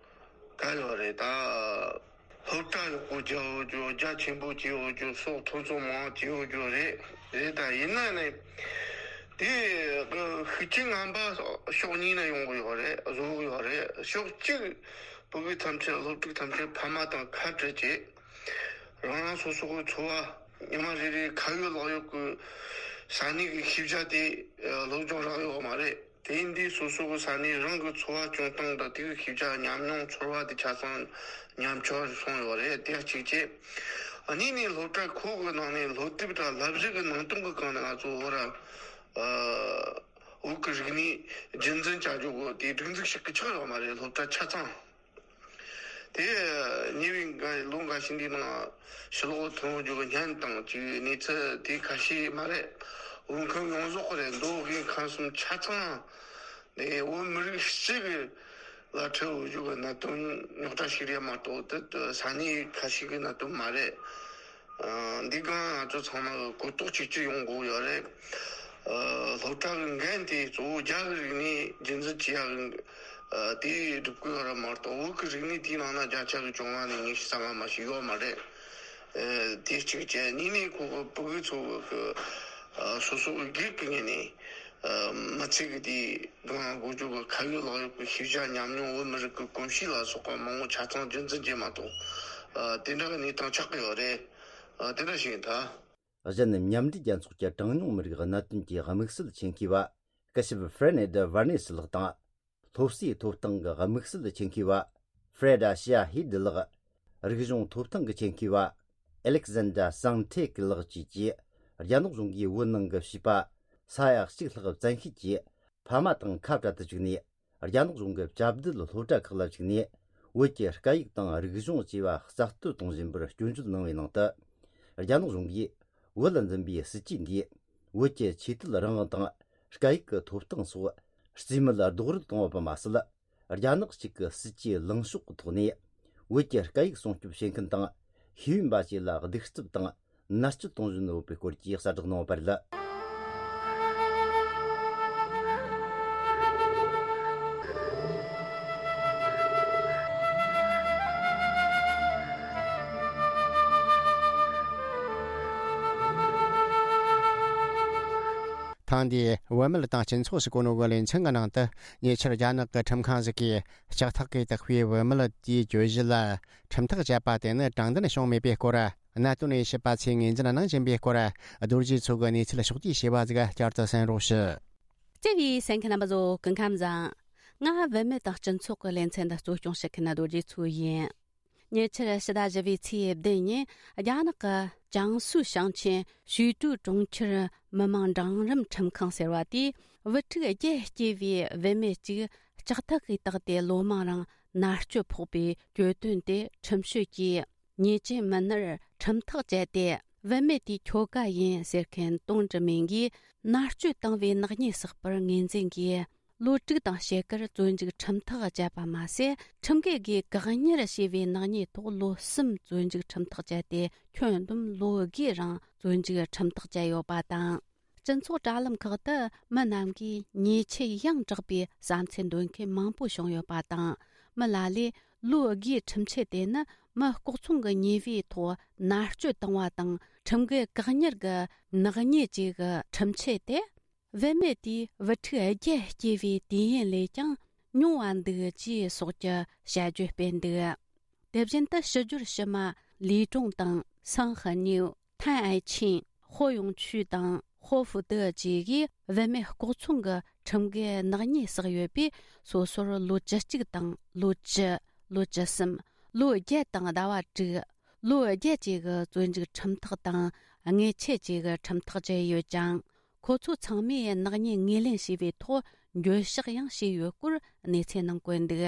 ག་ཡོད་རེད་ད། སློབ་གྲྭ་ཡག་པོ་རྒྱག་འོ་རྒྱུ། རྒྱ་ཆེན་པོ་བྱེད་འོ་རྒྱུ་སོགས་ཐོན་ཚོད་མང་བྱེད་འོ་རྒྱུ་རེད། རེད་ད། ཡིན་ན་ནི་དེ་ཤུགས་རྐྱེན་ངན་པ་ཕྱོགས་གཉིས་ནས་ཡོང་གི་ཡོད་རེད། བཟོ་གི་ཡོད་རེད། ཕྱོགས་གཅིག་བོད་ཕྲུག་ཐམས་ཅད་སློབ་ཕྲུག་ཐམས་ཅད་ཕ་མ་དང་ཁ་བྲལ་བྱས། རང་རང་སོ་སོ་གི་འཚོ་བ་ཉི་མ་རེ་རེ་ཁ་ཡོད་ལག་ཡོད་ཀྱི་ས་གནས་ཀྱི་ཤེས་བྱ་དེ་སློབ་སྦྱོང་རག་ཡོད་མ་རེད། དེ་ཡིན་དུས་སོ་སོ་གི་ས་གནས་རང་གི་འཚོ་བ་སྐྱོང་སྟངས་དང་དེ་གི་ཤེས་བྱ་ཉམས་མྱོང་ཚོར་བ་དེ་ཆ་ཚང་ཉམས་ཆག་སོང་ཡོད་རེད། དེ་གཅིག་བྱས། གཉིས་ནས་སློབ་གྲྭ་ཁག་གི་ནང་ནས་སློབ་དེབ་དང་བསླབ་གཞི་གི་ནང་དོན་གི་སྒང་ནས་ང་ཚོ་བོད་ར་བོད་ཀྱི་རིག་གནས་རྒྱུན་འཛིན་བྱ་རྒྱུ་གི་དེ་སྒྲིག་འཛུགས་ཤིག་གི་ཆགས་ཡོད་མ་རེད། སློབ་གྲྭ་ཆ་ཚང་། དེ་ཉེ་བའི་འགའ་ལོ་འགའ་ཤས་འདིའི་ནང་ཕྱི་ལོགས་ཐོན་རྒྱུ་གི་བརྙན་དང་གཅིག་གནས་ཚུལ་དེ་ཁ་ཤས་མ་རེད། འོས་འཁོད་ཡོངས་རྫོགས་རེད། མདོ་དབུས་ཁམས་གསུམ་ཆ་ཚང་ནས་བོད་མི་རིགས་གཅིག་གི་ལ་འཕྲད་འོས་རྒྱུ་གི་གནད་དོན་རྙོག་དྲ་ཞིག་རེད་མ་གཏོགས་དེ་ས་གནས་ཁ་ཤས་ཀྱི་གནད་དོན་མ་རེད། ཨ། འདི་གང་ང་ཚོ་ཚང་མ་གི་གོ་རྟོགས་གཅིག་གྱུར་ཡོང་དགོས་ཡོད་རེད། ཨ། སློབ་གྲྭ་གི་འགན་དེ་གཙོ་བོ་རྒྱ་གི་རིག་གནས་རྒྱུན་འཛིན་བྱེད་ཡག་གི་ཨ། དེ་སྒྲུབ་དགོས་ཡོད་རེད་མ་གཏོགས་བོད་ཀྱི་རིག་གནས་དེའི་ནང་ན་བརྒྱ་ཆ་གི་བཅོ་ལྔ་ནས་ཉི་ཤུ་རྩ་ལྔ་མ་ཞིག་ཡོད་མ་རེད། ཨ། དེ་གཅིག་བྱས། གཉིས་ནས་ཁོ་གི་ཕྲུ་གུ་ཚོ་གི་ཨ། སོ་སོ་གི་སྒེར་གྱི་ངོས་ནས་ཨ། མི་ཚེ་གི་དེ་གང་དགོས་རྒྱུ་གི་ཁ་ཡོད་ལག་ཡོད་ཀྱི་ཤེས་བྱ་ཉམས་མྱོང་བོད་མི་རིགས་ཀྱི་གོམས་གཤིས་ལ་སོགས་པ་མང་པོ་ཆ་ཚང་རྒྱུན་འཛིན་བྱེད་མ་གཏོགས་ཨ། དེ་འདྲ་གི་གནས་སྟངས་ཆགས་ཀྱི་ཡོད་རེད། ཨ། དེ་འདྲ་ཞིག་ཡིན་ད། གཞན་མཉམ་འབྲེལ་རྒྱལ་ཚོགས་ཀྱི་གྲངས་ཉུང་མི་རིགས་གནད་དོན་གྱི་དམིགས་བསལ་ཆེད་མཁས་པ་སྐུ་ཞབས་ཧྥེ་ནེ་ཌི་ཝར་ནེ་སི་ལགས་དང་། སློབ་གསོའི་ཐོབ་ཐང་གི་དམིགས་བསལ་ཆེད་མཁས་པ་ཧྥེ་རེ་ཌ་ཤི་ཡ་ཧི་ཌི་ལགས། རིག་གཞུང་ཐོབ་ཐང་གི་ཆེད་མཁས་པ་ཨེ་ལེག་ཟན་ཌ་སང་ཐེ་ཀི་ལགས་བཅས་ཀྱིས། རྒྱ་ནག་གཞུང་གིས་བོད་ནང་གི་བྱིས་པ་ས་ཡ་གཅིག་ལྷག་བཙན་ཤེད་ཀྱིས་ཕ་མ་དང་ཁ་བྲལ་དུ་བཅུག་ནས། རྒྱ་ནག་གཞུང་གི་བཅའ་སྡོད་སློབ་གྲྭ་ཁག་ལ་བཅུག་ནས། བོད་ཀྱི་སྐད་ཡིག་དང་རིག་གཞུང་བཅས་པ་རྩ་གཏོར་གཏོང་བཞིན་པར་སྐྱོན་བརྗོད་གནང་བའི་ནང་དུ། རྒྱ་ནག་གཞུང་གིས་བོད་ལ་འཛིན་པའི་སྲིད་ཇུས་འདིས། བོད་ཀྱི་ཆོས་དད་རང་དབང་དང་། སྐད་ཡིག་གི་ཐོབ་ཐང་སོགས་རྩིས་མེད་རྡོག་རོལ་གཏོང་བ་པ་མ་ཟད། རྒྱ་ནག་གཅིག་གི་སྲིད་ཇུས་ལངས་ཕྱོགས་ཀྱི་ཐོག་ནས། བོད་ཀྱི་སྐད་ཡིག་སྲུང་སྐྱོབ་བྱེད་མཁན་དང་། ཤེས་ཡོན་པ་བཅས་ལ་གདུག་རྩུབ་དང་མནར་གཅོད་གཏོང་བཞིན་ཡོད་པའི་སྐོར་གྱི་གསལ་བསྒྲགས་གནང་བ་རེད། ཐེངས་འདིའི་བུད་མེད་དང་སྤྱི་ཚོགས་ཟེར་གོ་ནོ་གི་ལེ་ཚན་གྱི་ནང་དུ། ཉེ་ཆར་རྒྱ་ནག་གི་ཁྲིམས་ཁང་ཟིག་གིས་ལྕགས་ཐག་གིས་བཏགས་པའི་བུད་མེད་དེའི་གྱོད་གཞི་ལ་ཁྲིམས་ཐག་བཅད་པ་དེ་ནི་དྲང་བདེན་བྱུང་མེད་པའི་སྐོར། གནད་དོན་དབྱེ་ཞིབ་པ་ཚོས་ངོས་འཛིན་གནང་བཞིན་པའི་སྐོར། རྡོ་རྗེ་མཚོ་གིས་གནས་ཚུལ་ཕྱོགས་བསྡུས་བྱས་པ་ཟིག་བསྐྱར་དུ་གསན་རོགས་ཞུ། བརྩེ་བའི་གསན་མཁན་རྣམ་པ་ཚོ་སྐུ་ཁམས་བཟང་། ང་བུད་མེད་དང་སྤྱི་ཚོགས་ཀྱི་ལེ་ཚན་འདི་གཙོ་སྐྱོང་བྱེད་མཁན་རྡོ་རྗེ་མཚོ་ཡིན། ཉེ་ཆར་ཕྱི་ཟླ་བཞི་པའི་ཚེས་བདུན་ཉིན་རྒྱ་ནག་གི་ཅང་སུའུ་ཞིང་ཆེན་ཞུས་ཀྲུའུ་གྲོང་ཁྱེར་མི་དམངས་འབྲིང་རིམ་ཁྲིམས་ཁང་ཟེར་བ་དེས། བུ་ཕྲུག་བརྒྱད་སྐྱེས་པའི་བུད་མེད་ཅིག་ལྕགས་ཐག་གིས་བཏགས་ཏེ་ལོ་མང་རིང་ མནར་གཅོད་ཕོག་པའི་གྱོད་དོན་དེ་ཁྲིམས་ཞིབ་ཀྱིས་ཉེས་ཅན་མི་སྣར་ཁྲིམས་ཐག་བཅད་དེ། བུད་མེད་དེའི་ཁྱོ་ག་ཡིན་ཟེར་མཁན་ཏུང་ཀྲི་མིང་གིས་མནར་གཅོད་བཏང་བའི་ནག་ཉེས་བསགས་པར་ངོས་འཛིན་གྱིས། ལོ་དྲུག་དང་ཕྱེད་ཀར་བཙོན་འཇུག་ཁྲིམས་ཐག་བཅད་པ་མ་ཟད། ཁྲིམས་འགལ་སྒོས་བཀག་ཉར་བྱས་པའི་ནག་ཉེས་ཐོག་ལོ་གསུམ་བཙོན་འཇུག་ཁྲིམས་ཐག་བཅད་དེ། ཁྱོན་བསྡོམས་ལོ་དགུའི་རིང་བཙོན་འཇུག་ཁྲིམས་ཐག་བཅད་ཡོད་པ་དང་། སྤྱི་ཚོགས་དྲ་ལམ་ཁག་ཏུ་མི་རྣམས་ཀྱིས་ཉེས་ཆད་ཡང་དྲག་པའི་བསམ་ཚུལ་འདོན་མཁན་མང་པོ་བྱུང་ཡོད་པ་དང་། མི་ལ་ལས་ལོ་དགུའི་ཁྲིམས་ཆད་དེ་ནི་མི་ལྐོག་ཚོང་གི་ཉེས་པའི་ཐོག་མནར་གཅོད་བཏང་བ་དང་ཁྲིམས་འགལ་བཀག་ཉར་གྱི་ནག་ཉེས་བཅས་ཀྱི་ཁྲིམས་ཆད་དེ། བུད་མེད་དེས་བུ་ཕྲུག་བརྒྱད་སྐྱེས་པའི་དུས་ཡུན་ལས་ཀྱང་ཉུང་བ་འདུག་ཅེས་སོགས་ཀྱི་བྱ་བརྗོད་སྤེལ་འདུག་དེ་བཞིན་དུ་ཕྱི་སྦྱོར་ཕྱི་མ་ལི་ཀྲུང་དང་སང་ཧི་ཉིའུ། ཐན་ཨའེ་ཆིན། ཧོ་ཡུང་ཆུས་དང་ཧོ་ཧྥུ་ཏེ་བཅས་ཀྱིས་བུད་མེད་ལྐོག་ཚོང་གི་ཁྲིམས་འགལ་ནག་ཉེས་བསགས་ཡོད་པས། སོ་སོར་ལོ་བཅུ་གཅིག་དང་ལོ་བཅུ། ལོ་བཅུ་གསུམ། ལོ་བརྒྱད་དང་ཟླ་བ་དྲུག། ལོ་བརྒྱད་བཅས་ཀྱི་བཙོན་འཇུག་ཁྲིམས་ཐག་དང་། ཉེས་ཆད་བཅས་ཀྱི་ཁྲིམས་ཐག་བཅད་ཡོད་ཀྱང་། ཁོ་ཚོ་ཚང་མས་ནག་ཉེས་ངོས་ལེན་བྱས་པའི་ཐོག་འགྱོད་བཤགས་ཡང་བྱས་ཡོད་སྐོར་གནས་ཚུལ་ནང་བཀོད་འདུག་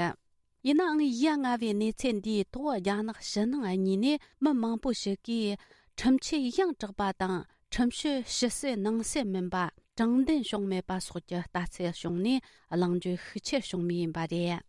ཡིན་ནའང་། ཡ་ང་བའི་གནས་ཚུལ་འདིའི་ཐོག་རྒྱ་ནག་ཕྱི་ནང་གཉིས་ནས་མི་མང་པོ་ཞིག་གིས་ཁྲིམས་ཆད་ཡང་དྲག་པ་དང་། ཁྲིམས་གཅོད་ཕྱི་གསལ་ནང་གསལ་མིན་པ། དྲང་བདེན་བྱུང་མེད་པ་སོགས་ཀྱི་ལྟ་ཚུལ་བྱུང་ནས། གླེང་བརྗོད་ཤུགས་ཆེར་བྱུང་མུས་ཡིན་པ་རེད།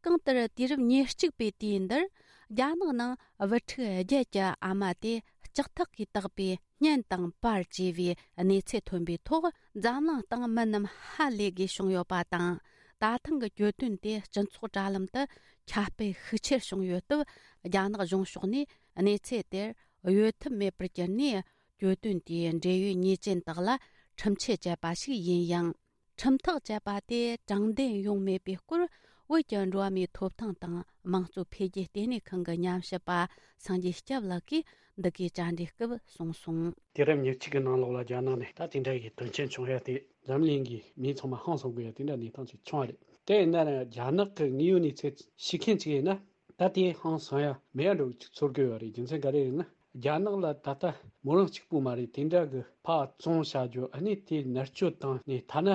གང་ལྟར། དུས་རབས་ཉེར་གཅིག་པའི་དུས་འདིར། རྒྱ་ནག་ནང་བུ་ཕྲུག་བརྒྱད་ཀྱི་ཨ་མ་དེ་ལྕགས་ཐག་གིས་བཏགས་པའི་སྙན་དང་པར་བཅས་པའི་གནས་ཚུལ་ཐོན་པའི་ཐོག་འཛམ་གླིང་སྟེང་མི་རྣམས་ཧ་ལས་དགོས་བྱུང་ཡོད་པ་དང་། ད་ཐེངས་ཀྱི་གྱོད་དོན་དེ་སྤྱི་ཚོགས་དྲ་ལམ་དུ་ཁྱབ་སྤེལ་ཤུགས་ཆེར་བྱུང་ཡོད་སྟབས། རྒྱ་ནག་གཞུང་ཕྱོགས་ནས་གནས་ཚུལ་དེར་གཡོལ་ཐབས་མེད་པར་གྱུར་ནས། གྱོད་དོན་དེའི་འབྲེལ་ཡོད་ཉེས་ཅན་དག་ལ་ཁྲིམས་ཆད་བཅད་པ་ཞིག་ཡིན་ཡང་། ཁྲིམས་ཐག་བཅད་པ་དེ་དྲང་བདེན་ཡོང་མེད་པའི་སྐོར། བོད་ཀྱི་འགྲོ་བ་མིའི་ཐོབ་ཐང་དང་དམངས་གཙོ་འཕེལ་རྒྱས་ལྟེ་གནས་ཁང་གི་ཉམས་ཞིབ་པ་སངས་རྒྱས་སྐྱབས་ལགས་ཀྱིས་འདི་གའི་བཅར་འདྲིའི་སྐབས་གསུངས་སོང་། དུས་རབས་ཉེར་གཅིག་གི་ནང་ལོགས་ལ་རྒྱ་ནག་ནས་ད་དེ་འདྲ་ཡི་དོན་རྐྱེན་བྱུང་ཡ་དེ། འཛམ་གླིང་གི་མི་ཚང་མ་ཧང་སང་དགོས་ཡ་དེ་འདྲ་གནས་སྟངས་ཅིག་བྱུང་བ་རེད། དེ་ཡིན་ན་རྒྱ་ནག་གི་དངོས་ཡོད་གནས་ཚུལ་ཤེས་མཁན་ཅིག་ཡིན་ན། ད་དེ་ཧང་སང་ཡ་མེད་ཡ་འགྲོ་གི་ཚོར་གི་ཡོད་རེད། རྒྱུ་མཚན་ག་རེ་ཡིན་ན། རྒྱ་ནག་ལ་ད་ལྟ་མོ་རང་གཅིག་པུ་མ་རེད། དེ་འདྲ་གི་ཕར་བཙོང་བྱ་རྒྱུ། ཨ་ནི་དེ་མནར་གཅོད་བཏང་ནས་ཐ་ན་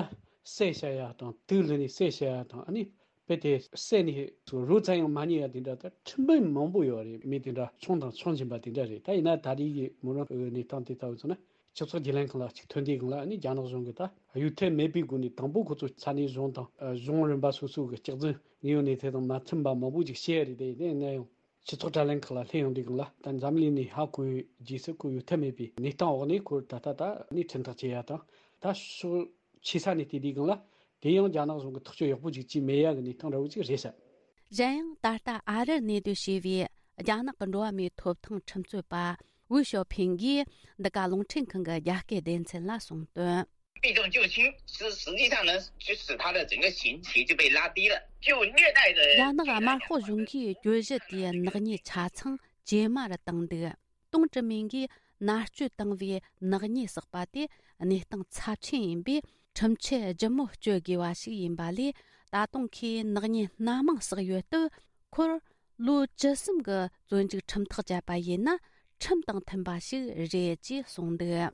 བསད་བྱ་ཡ་དང་། དུག་བླུགས་ནས་བསད་བྱ་ཡ་དང་། ཨ་ནི་དཔེ་དེ་བསད་ནས་རོ་ཙམ་ཡང་མ་རྙེད་ཡ་དེ་འདྲ། ད་ཁྲིམས་དཔོན་མང་པོ་ཡོད་རེད། མི་དེ་འདྲ་ཆུང་དང་ཆུང་ཆེན་པ་དེ་འདྲ་རེད། ད་ཡིན་ན་ད་རེས་ཀྱི་མོ་རང་གི་གནས་སྟངས་དེ་ལྟ་བུ་ཚོ་ན། སྤྱི་ཚོགས་བརྒྱུད་ལམ་ཁག་ལ་ཅིག་ཐོན་དུས་སྒང་ལ། ཨ་ནི་རྒྱ་ནག་གཞུང་གིས་ད་གཡོལ་ཐབས་མེད་པའི་སྒོ་ནས། དང་པོ་ཁོ་ཚོ་ས་གནས་གཞུང་དང་། ཨ། གཞུང་རིམ་པ་སོ་སོ་གི་སྐྱག་རྫུན་དངོས་ཡོད་གནས་ཚུལ་དང་མ་མཐུན་པ་མང་པོ་ཅིག་བཤད་ཡ་རེད། དེ་ཡིན་ན་ཡང་སྤྱི་ཚོགས་དྲ་ལམ་ཁག་ལ་སླེབས་ཡོང་དུས་སྒང་ལ། ད་འཛམ་གླིང་ནས་ཧ་གོ་བའི་རྗེས་སུ། ཁོ་གཡོལ་ཐབས་མེད་པའི་གནས་སྟངས་འོག་ནས་ཁོ་ད་ལྟ་ད་ནི་ཁྲིམས་ཐག་བཅད་ཡ་དང་། ད་ཕྱོགས་ཆེ་ས་ནས་བལྟས་དུས་སྒང་ལ། དེ་ཡང་རྒྱ་ནག་གཞུང་གིས་ཐག་གཅོད་ཡག་པོ་ཅིག་བྱས་མེད་ཡ་གི་གནས་སྟངས་འདྲ་བོ་ཅིག་རེད་ཤག་གཞན་ཡང་། ད་ལྟ་ཨ་རིར་གནས་སྡོད་བྱས་པའི་རྒྱ་ནག་གི་འགྲོ་བ་མིའི་ཐོབ་ཐང་ཁྲིམས་རྩོད་པ་ཝུའུ་ཞའོ་ཕིང་གིས་འདི་ག་རླུང་འཕྲིན་ཁང་གི་རྒྱ་སྐད་སྡེ་ཚན་ལ་གསུངས་དོན། 避重就轻，实实际上呢，就使他的整个刑期就被拉低了，就虐待的。རྒྱ་ནག་དམར་ཤོག་གཞུང་གིས་གྱོད་གཞི་དེའི་ནག་ཉེས་ཆ་ཚང་ཇེ་དམའ་རུ་བཏང་འདུག་ཏུང་ཀྲི་མིང་གིས་མནར་གཅོད་བཏང་བའི་ནག་ཉེས་བསགས་པ་དེ་གནས་སྟངས་ཚབས་ཆེན་ཡིན་པས། ཁྲིམས་ཆད་ལྗིད་མོ་གཅོད་དགོས་པ་ཞིག་ཡིན་པ་ལས། ད་དུང་ཁོས་ནག་ཉེས་སྣ་མང་བསགས་ཡོད་སྟབས། ཁོར་ལོ་བཅུ་གསུམ་གྱི་བཙོན་འཇུག་ཁྲིམས་ཐག་བཅད་པ་ཡིན་ན། ཁྲིམས་དང་མཐུན་པ་ཞིག་རེད་ཅེས་གསུངས་འདུག་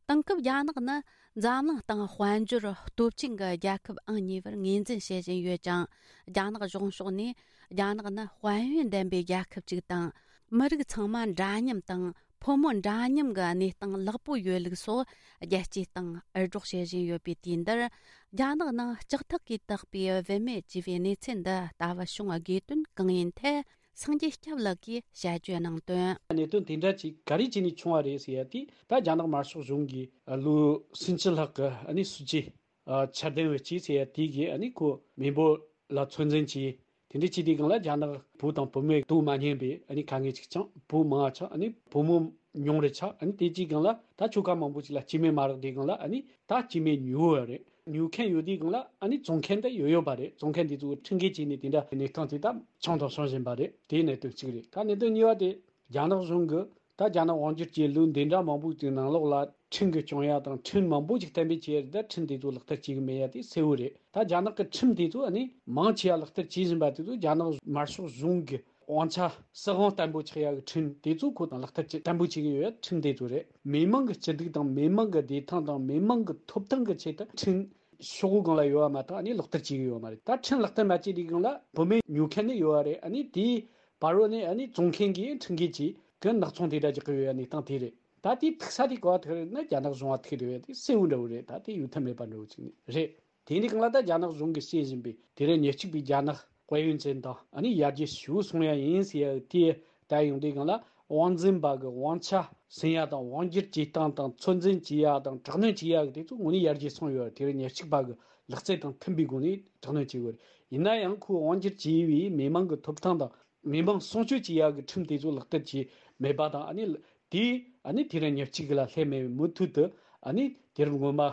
དེང་སྐབས་རྒྱ་ནག་ནི་འཛམ་གླིང་སྟེང་དཔལ་འབྱོར་སྟོབས་ཆེན་གྱི་རྒྱལ་ཁབ་ཨང་གཉིས་པར་ངོས་འཛིན་བྱེད་བཞིན་ཡོད་ཀྱང་། རྒྱ་ནག་གཞུང་ཕྱོགས་ནས་རྒྱ་ནག་ནི་དཔལ་ཡོན་ལྡན་པའི་རྒྱལ་ཁབ་ཅིག་དང་། མི་རིགས་ཚང་མ་འདྲ་མཉམ་དང་། ཕོ་མོ་འདྲ་མཉམ་གྱི་གནས་སྟངས་ལེགས་པོ་ཡོད་ལུགས་སོགས་རྒྱལ་སྤྱིའི་སྟེང་འུར་སྒྲོག་བྱེད་བཞིན་ཡོད་པའི་དུས་འདིར། རྒྱ་ནག་ནང་ལྕགས་ཐག་གིས་བཏགས་པའི་བུད་མེད་ཅེས་པའི་གནས་ཚུལ་འདི་ལྟ་བུ་བྱུང་བའི་དགོས་དོན་གང་ཡིན་ཐད། སངས་རྒྱས་སྐྱབས་ལགས་ཀྱིས་དཔྱད་བརྗོད་གནང་དོན། གནད་དོན་དེ་འདྲ་ཅིག་ག་རེ་བྱས་ནས་བྱུང་བ་རེད་ཟེར་ཡ་དེ། ད་རྒྱ་ནག་དམར་ཤོག་གཞུང་གིས་ལོ་སུམ་ཅུ་ལྷག་གི་ཨ་ནི་སྲིད་ཇུས་ཨ་འཆར་ལྡན་བྱས་ཟེར་ཡ་དེ་གིས། ཨ་ནི་ཁོ་མི་འབོར་ལ་ཚོད་འཛིན་བྱས། དེ་འདྲ་བྱས་དུས་སྒང་ལ་རྒྱ་ནག་བུ་དང་བུད་མེད་དུ་མ་ཉན་པའི་ཨ་ནི་དཀའ་ངལ་ཅིག་བྱུང་། བུ་མང་བ་ཆགས། ཨ་ནི་བུ་མོ་ཉུང་རུ་ཆགས། ཨ་ནི་དེ་དུས་སྒང་ལ་ད་ཁྱོ་ག་མང་པོ་ཅིག་ལ་སྐྱེ་དམན་མ་རག་དུས་སྒང་ལ། ཨ་ནི་ད་སྐྱེ་དམན་ཉོ་བ་རེད། ཉོ་མཁན་ཡོད་དུས་སྒང་ལ། ཨ་ནི་བཙོང་མཁན་དེ་ཡོད་ཡོད་པ་རེད། བཙོང་མཁན་དེ་ཚོ་ཁྲིམས་འགལ་བྱས་ནས་དེ་འདྲ་གནས་སྟངས་དེ་ད་བྱུང་དང་འབྱུང་བཞིན་པ་རེད། དེ་གནད་དོན་གཅིག་རེད། ད་གནད་དོན་གཉིས་པ་དེ། རྒྱ་ནག་གཞུང་གིས་ད་རྒྱ་ནག་དབང་སྒྱུར་གྱི་ལོ་འདི་འདྲ་མང་པོ་ཅིག་ནང་ལོགས་ལ་ཁྲིམས་ཀྱིས་སྐྱོང་ཡ་དང་། ཁྲིམས་མང་པོ་ཅིག་གཏན་འབེབས་བྱས་རེད། ད་ཁྲིམས་དེ་ཚོ་ལག་བསྟར་བྱེད་ཀྱི་མེད་ཡ་དེ་གསལ་བོ་རེད། ད་རྒྱ་ནག་གི་ཁྲིམས་དེ་ཚོ་ཨ་ནི་མང་ཆེ་བ་ལག་བསྟར་བྱེད་བཞིན་པ་དེ་ཚོ། རྒྱ་ནག་དམར་ཤོག་གཞུང་གི་དབང་ཆ་སྲིད་དབང་བརྟན་པོ་ཆགས་ཡ་གི་ཁྲིམས་དེ་ཚོ་ཁོ་ལག་བསྟར་བྱེད་བརྟན་པོ་བྱེད་ཀྱི་ཡོད་ཡ་ཁྲིམས་དེ་ཚོ་རེད། མི་མང་གི་སྐྱིད་སྡུག་དང་། མི་མང་གི་བདེ་ཐང་དང་། མི་མང་གི་ཐོབ་ཐང་གི་ཆེད་དུ་ཁྲིམས་ ཤོག་བུ་སྒང་ལ་ཡོད་པ་མ་གཏོགས་ཨ་ནི་ལག་བསྟར་བྱེད་ཀྱི་ཡོད་མ་རེད། ད་ཁྲིམས་ལག་བསྟར་མ་བྱས་དུས་སྒང་ལ་བུད་མེད་ཉོ་མཁན་ནི་ཡོད་པ་རེད། ཨ་ནི་དེའི་བར་རོ་ནས་ཨ་ནི་བཙོང་མཁན་གྱིས་ཁྲིམས་འགལ་གྱིས་གི་ནག་ཚོང་དེ་འདྲ་རྒྱག་གི་ཡོད་པའི་གནས་སྟངས་དེ་རེད། ད་དེའི་ཐུག་ས་དེ་ག་པར་ཐུག་རེད་ན་རྒྱ་ནག་གཞུང་ལ་ཐུག་རེད་པས། དེ་གསལ་བོ་འདྲ་བོ་རེད། ད་དེ་ཡོད་ཐབས་མེད་པ་འདྲ་བོ་ཅིག་ནི་རེད། དེ་འདྲའི་སྒང་ལ་ད་རྒྱ་ནག་གཞུང་གིས་བཤད་བཞིན་པའི་དེ་རིང་ཉེར་གཅིག་པའི་རྒྱ་ནག་དཔལ་ཡོན་ཅན་དང་ཨ་ནི་ཡར་རྒྱས་ཞེ་པོ་སོང་ཡ་ཡིན་ཟེར་ཡ་དེ་ད་ཡོང་དུས་སྒང་ལ་དབང་འཛིན་པ་གི་དབང་ཆ་ཟིན་ཡ་དང་དབང་སྒྱུར་བྱེད་སྟངས་དང་ཚོད་འཛིན་བྱེད་ཡ་དང་དྲག་གནོན་བྱེད་ཡ་གི་དེ་ཚོ་དངོས་གནས་ཡར་རྒྱས་སོང་ཡོད། དེ་རིང་ཉེར་གཅིག་པ་གི་ལག་རྩལ་དང་མཐུན་པའི་སྒོ་ནས་དྲག་གནོན་བྱེད་དགོས་རེད། ཡིན་ན་ཡང་ཁོས་དབང་སྒྱུར་བྱས་པའི་མི་མང་གི་ཐོབ་ཐང་དང་མི་མང་སྲུང་སྐྱོབ་བྱེད་ཡ་གི་ཁྲིམས་དེ་ཚོ་ལག་བསྟར་བྱས་མེད་པ་དང་ཨ་ནི་དེས་ཨ་ནི་དེ་རིང་ཉེར་གཅིག་གི་ལ་སླེབས་མེད་པའི་མུ་མཐུད་དུ་ཨ་ནི་དུས་རབས་སྔོན་མ་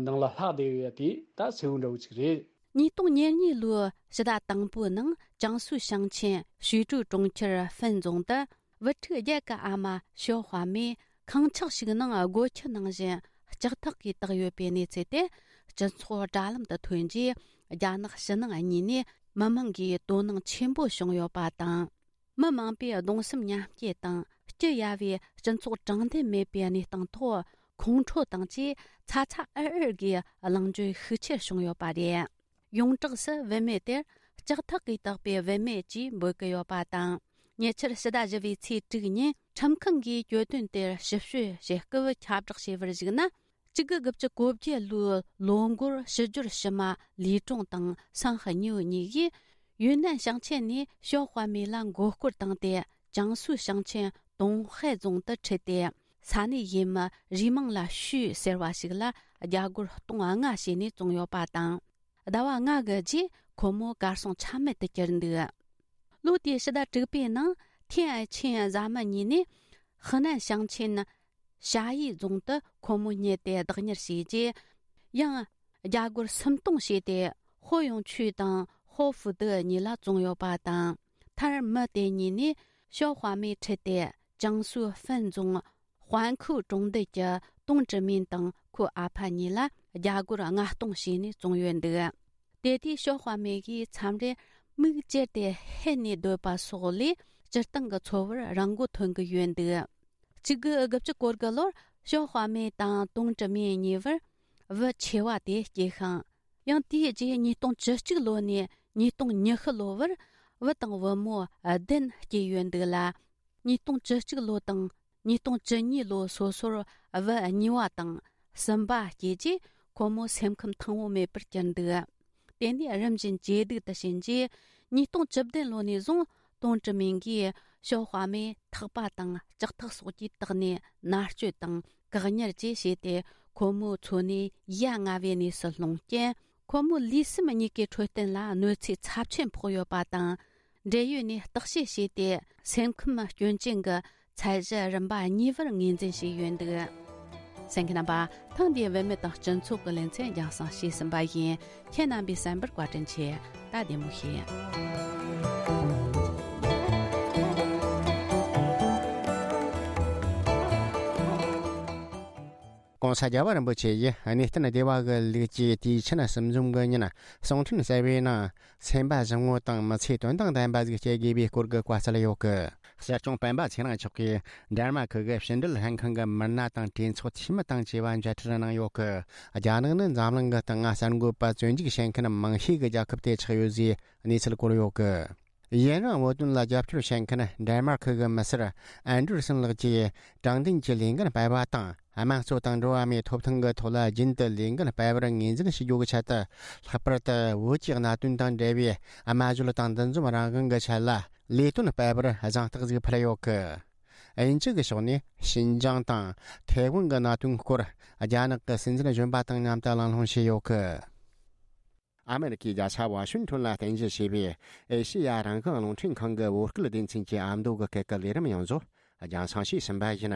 ནང་ལ་ལྷག་བསྡད་ཡོད་ཡ་དེ་ད་གསལ་བོ་འདྲ་བོ་ཅིག་རེད། ཉིས་སྟོང་ཉེར་གཉིས་ལོའི་ཕྱི་ཟླ་དང་པོའི་ནང་ཅང་སུའུ་ཞིང་ཆེན་ཞུས་ཀྲུའུ་གྲོང་ཁྱེར་ཧྥན་རྫོང་དུ་བུ་ཕྲུག་བརྒྱད་ཀྱི་ཨ་མ་ཞའོ་ཧྭ་མེ་ཁང་ཆག་ཞིག་ནང་སྒོ་ཁྱི་ནང་བཞིན་ལྕགས་ཐག་གིས་བཏགས་ཡོད་པའི་གནས་ཚུལ་དེ་སྤྱི་ཚོགས་དྲ་ལམ་དུ་ཐོན་རྗེས་རྒྱ་ནག་ཕྱི་ནང་གཉིས་ནས་མི་མང་གིས་དོ་སྣང་ཆེན་པོ་བྱུང་ཡོད་པ་དང་། མི་མང་པོས་གདུང་སེམས་མཉམ་སྐྱེད་དང་སྐྱི་གཡའ་བའི་སྤྱི་ཚོགས་དྲང་བདེན་མེད་པའི་གནས་སྟངས་ཐོག་ཁོང་ཁྲོ་དང་བཅས་ཚ་ཚ་འུར་འུར་གྱིས་གླེང་བརྗོད་ཤུགས་ཆེར་བྱུང་ཡོད་པ་རེད། ཡོངས་གྲགས་སུ་བུད་མེད་དེར་ལྕགས་ཐག་གིས་བཏགས་པའི་བུད་མེད་ཅེས་འབོད་ཀྱི་ཡོད་པ་དང་། ཉེ་ཆར་ཕྱི་ཟླ་བཞི་པའི་ཚེས་དྲུག་ཉིན་ཁྲིམས་ཁང་གིས་གྱོད་དོན་དེར་ཞིབ་དཔྱོད་བྱེད་སྐབས་ཁྱབ་བསྒྲགས་བྱས་པར་གཞིགས་ན། གཅིག་དགུ་དགུ་བཅུ་གོ་བརྒྱད་ལོའི་ལོ་འགོར་ཕྱི་སྦྱོར་ཕྱི་མ་ལི་ཀྲུང་དང་སང་ཧེ་ཉིའུ་གཉིས་ཀྱིས་ཡུན་ནན་ཞིང་ཆེན་ནས་ཞའོ་ཧྭ་མེ་ལ་མགོ་སྐོར་བཏང་སྟེ་ཅང་སུའུ་ཞིང་ཆེན་ཏུང་ཧའེ་རྫོང་དུ་ཁྲིད་དེ་ས་གནས་ཡུལ་མི་རུས་མིང་ལ་ཞུས་ཟེར་བ་ཞིག་ལ་རྒྱ་སྒོར་སྟོང་ལྔ་བྱས་ནས་བཙོངས་ཡོད་པ་དང་། ཟླ་བ་ལྔ་གི་རྗེས་ཁོ་མོ་གར་སོང་ཆ་མེད་དུ་གྱུར་འདུག་ལོ་དེའི་ཕྱི་ཟླ་དྲུག་པའི་ནང་ཐེན་ཨའེ་ཆིན་བཟའ་མི་གཉིས་ནས་ཧི་ནན་ཞིང་ཆེན་ཞ་ཡི་རྫོང་དུ་ཁོ་མོ་རྙེད་དེ་བདག་གཉེར་བྱས་རྗེས། ཡང་རྒྱ་སྒོར་སུམ་སྟོང་བྱས་ཏེ་ཧོ་ཡོང་ཆུས་དང་ཧོ་ཧྥུ་ཏི་གཉིས་ལ་བཙོངས་ཡོད་པ་དང་། མཐར་མི་དེ་གཉིས་ནས་ཞའོ་ཧྭ་མེ་ཁྲིད་དེ་ཅང་སུའུ་ཧྥན་རྫོང་དཔལ་ཁུའུ་གྲོང་རྡལ་གྱི་ཏུང་ཀྲི་མིན་དང་ཁོའི་ཨ་ཕ་གཉིས་ལ་རྒྱ་སྒོར་ལྔ་སྟོང་བྱས་ནས་བཙོངས་ཡོད་འདུག་དེ་དུས་ཞའོ་ཧྭ་མེ་གིས་མཚམས་རེར་མིག་ཅེར་ཏེ་ཧད་ནས་སྡོད་པ་སོགས་ལས་སྤྱིར་བཏང་གི་འཚོ་བར་རང་མགོ་ཐོན་གྱི་ཡོད་འདུག་གཅིག་དགུ་དགུ་བཅུ་གོ་དགུ་ལོར་ཞའོ་ཧྭ་མེ་དང་ཏུང་ཀྲི་མིན་གཉིས་བར་བུ་ཆེ་བ་དེ་སྐྱེས་ཤིང་། ཡང་དེའི་རྗེས་ཉིས་སྟོང་བཅུ་གཅིག་ལོ་ནས་ཉིས་སྟོང་ཉི་ཤུ་ལོ་བར་བུ་དང་བུ་མོ་བདུན་སྐྱེས་ཡོད་འདུག་ལ། ཉིས་སྟོང་བཅུ་གཅིག་ལོ་དང་ཉིས་སྟོང་བཅུ་གཉིས་ལོ་སོ་སོར་བུ་གཉིས་པ་དང་གསུམ་པ་སྐྱེས་རྗེས་ཁོ་མོ་སེམས་ཁམས་ཐང་པོ་མེད་པར་གྱུར་འདུག་དེ་ནས་རིམ་བཞིན་ཇེ་སྡུག་ཏུ་ཕྱིན་རྗེས་ཉིས་སྟོང་བཅུ་བདུན་ལོ་ནས་བཟུང་ཏུང་ཀྲི་མིན་གྱིས་ཞའོ་ཧྭ་མེ་ཐག་པ་དང་ལྕགས་ཐག་སོགས་ཀྱིས་བཏགས་ནས་མནར་གཅོད་དང་བཀག་ཉར་བཅས་བྱས་ཏེ་ཁོ་མོའི་འཚོ་གནས་ཡ་ང་བའི་གནས་སུ་ལྷུང་རྐྱེན། ཁོ་མོའི་ལུས་སེམས་གཉིས་ཀའི་འཕྲོད་བསྟེན་ལ་གནོད་འཚེ་ཚབས་ཆེན་ཕོག་ཡོད་པ་དང་། འབྲེལ་ཡོད་ནས་བརྟག་དཔྱད་བྱས་ཏེ་སེམས་ཁམས་སྐྱོན་ཅན་གྱི་ཚད་གཞི་རིམ་པ་གཉིས་པར་ངོས་འཛིན་བྱས་ཡོད་འདུག་གསན་མཁན་རྣམ་པ། ཐེངས་འདིའི་བུད་མེད་དང་སྤྱི་ཚོགས་ཀྱི་ལེ་ཚན་རྒྱང་སྲིང་ཞུས་ཟིན་པ་ཡིན། ཁྱེད་རྣམ་པས་གསན་པར་བཀའ་དྲིན་ཆེ། ད་བདེ་མོ་བྱོས། ༸གོང་ས་རྒྱལ་བ་རིན་པོ་ཆེ་ཡིས་གནས་བརྟན་སྡེ་བ་གི་ལུགས་ཀྱི་དུས་ཆེན་གསུམ་འཛོམས་ཀྱི་ཉིན་གསུང་འཕྲིན་གསར་བའི་ནང་སེམས་པ་བཟང་བོ་དང་མི་ཚེ་དོན་དང་ལྡན་པ་ཞིག་སྐྱེལ་དགོས་པའི་སྐོར་གྱི་བཀའ་སྩལ་ཡོད་གི། གསེར་གཅོང་སྤེན་པ་ཚེ་རིང་མཆོག་གིས་འདན་མ་ཁུལ་གྱི་ཕྱི་འབྲེལ་ལྷན་ཁང་གི་མི་སྣ་དང་གྲོས་ཚོགས་འཐུས་མི་དང་བཅས་པ་མཇལ་འཕྲད་གནང་ཡོད་གི། རྒྱ་ནག་ནི་འཛམ་གླིང་གི་སྟེང་གསར་འགོད་པ་བཙོན་འཇུག་བྱེད་མཁན་མང་ཤོས་ཀྱི་རྒྱལ་ཁབ་དེ་ཆགས་ཡོད་ཅེས་གནས་ཚུལ་བཀོད་ཡོད་གི། ཡུན་རིང་བོད་དོན་ལ་རྒྱབ་སྐྱོར་བྱེད་མཁན་འདན་མ་ཁུལ་གྱི་མི་སེར་ཨན་ཌར་སན་ལགས་ཀྱིས་དྲང་བདེན་གྱི་ལས་འགན་སྤེལ་བ་དང་། དམངས་གཙོ་དང་འགྲོ་བ་མིའི་ཐོབ་ཐང་གི་ཐོག་ལ་རྒྱུན་དུ་ལས་འགན་སྤེལ་བར་ངོས་འཛིན་ཞུ་རྒྱུ་གི་ཆེད་དུ། ལྷག་པར་དུ་བོད་ཀྱི་གནད་དོན་དང་འབྲེལ་བའི་སྨྲ་བརྗོད་དང་འདུ་འཛོམས་རང་དབང་གི་ཆེད་ལ་ལས་དོན་སྤེལ་བར་གཟེངས་རྟགས་ཤིག་ཕུལ་ཡོད་གི། དབྱིན་ཇི་གི་ཕྱོགས་ནས་ཤིན་ཅང་དང་ཐའེ་ཝན་གྱི་གནད་དོན་སྐོར་རྒྱ་ནག་གི་སྲིད་འཛིན་གཞོན་པ་དང་མཉམ་དུ་གླེང་སློང་བྱས་ཡོད་གི། ཨ་མེ་རི་ཁའི་རྒྱལ་ས་ཝ་ཤིང་ཊོན་ལ་རྟེན་གཞི་བྱས་པའི་ཨེ་ཤེ་ཡ་རང་དབང་རླུང་འཕྲིན་ཁང་གི་བོད་སྐད་སྡེ་ཚན་གྱི་ཨ་མདོ་གི་སྐད་ཀྱི་ལས་རིམ་ཡོངས་རྫོགས་རྒྱང་སྲིང་བྱས་ཟིན་པ་ཡིན།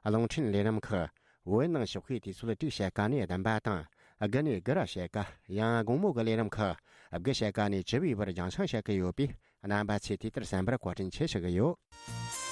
རླུང་འཕྲིན་ལས་རིམ་ཁག་བོད་ནང་ཞོགས་ཀའི་དུས་ཚོད་དྲུག་ཕྱེད་ཀ་ནས་བདུན་པ་དང་། དགུ་ནས་དགུ་ར་ཕྱེད་ཀ། ཡང་དགོང་མོ་གི་ལས་རིམ་ཁག་དགུ་ཕྱེད་ཀ་ནས་བཅུ་པའི་བར་རྒྱང་སྲིང་བྱེད་ཀྱི་ཡོད་པས། རྣམ་པ་ཚོས་དུས་ལྟར་གསན་པར་བཀའ་དྲིན་ཆེ་ཞུ་གི་ཡོད།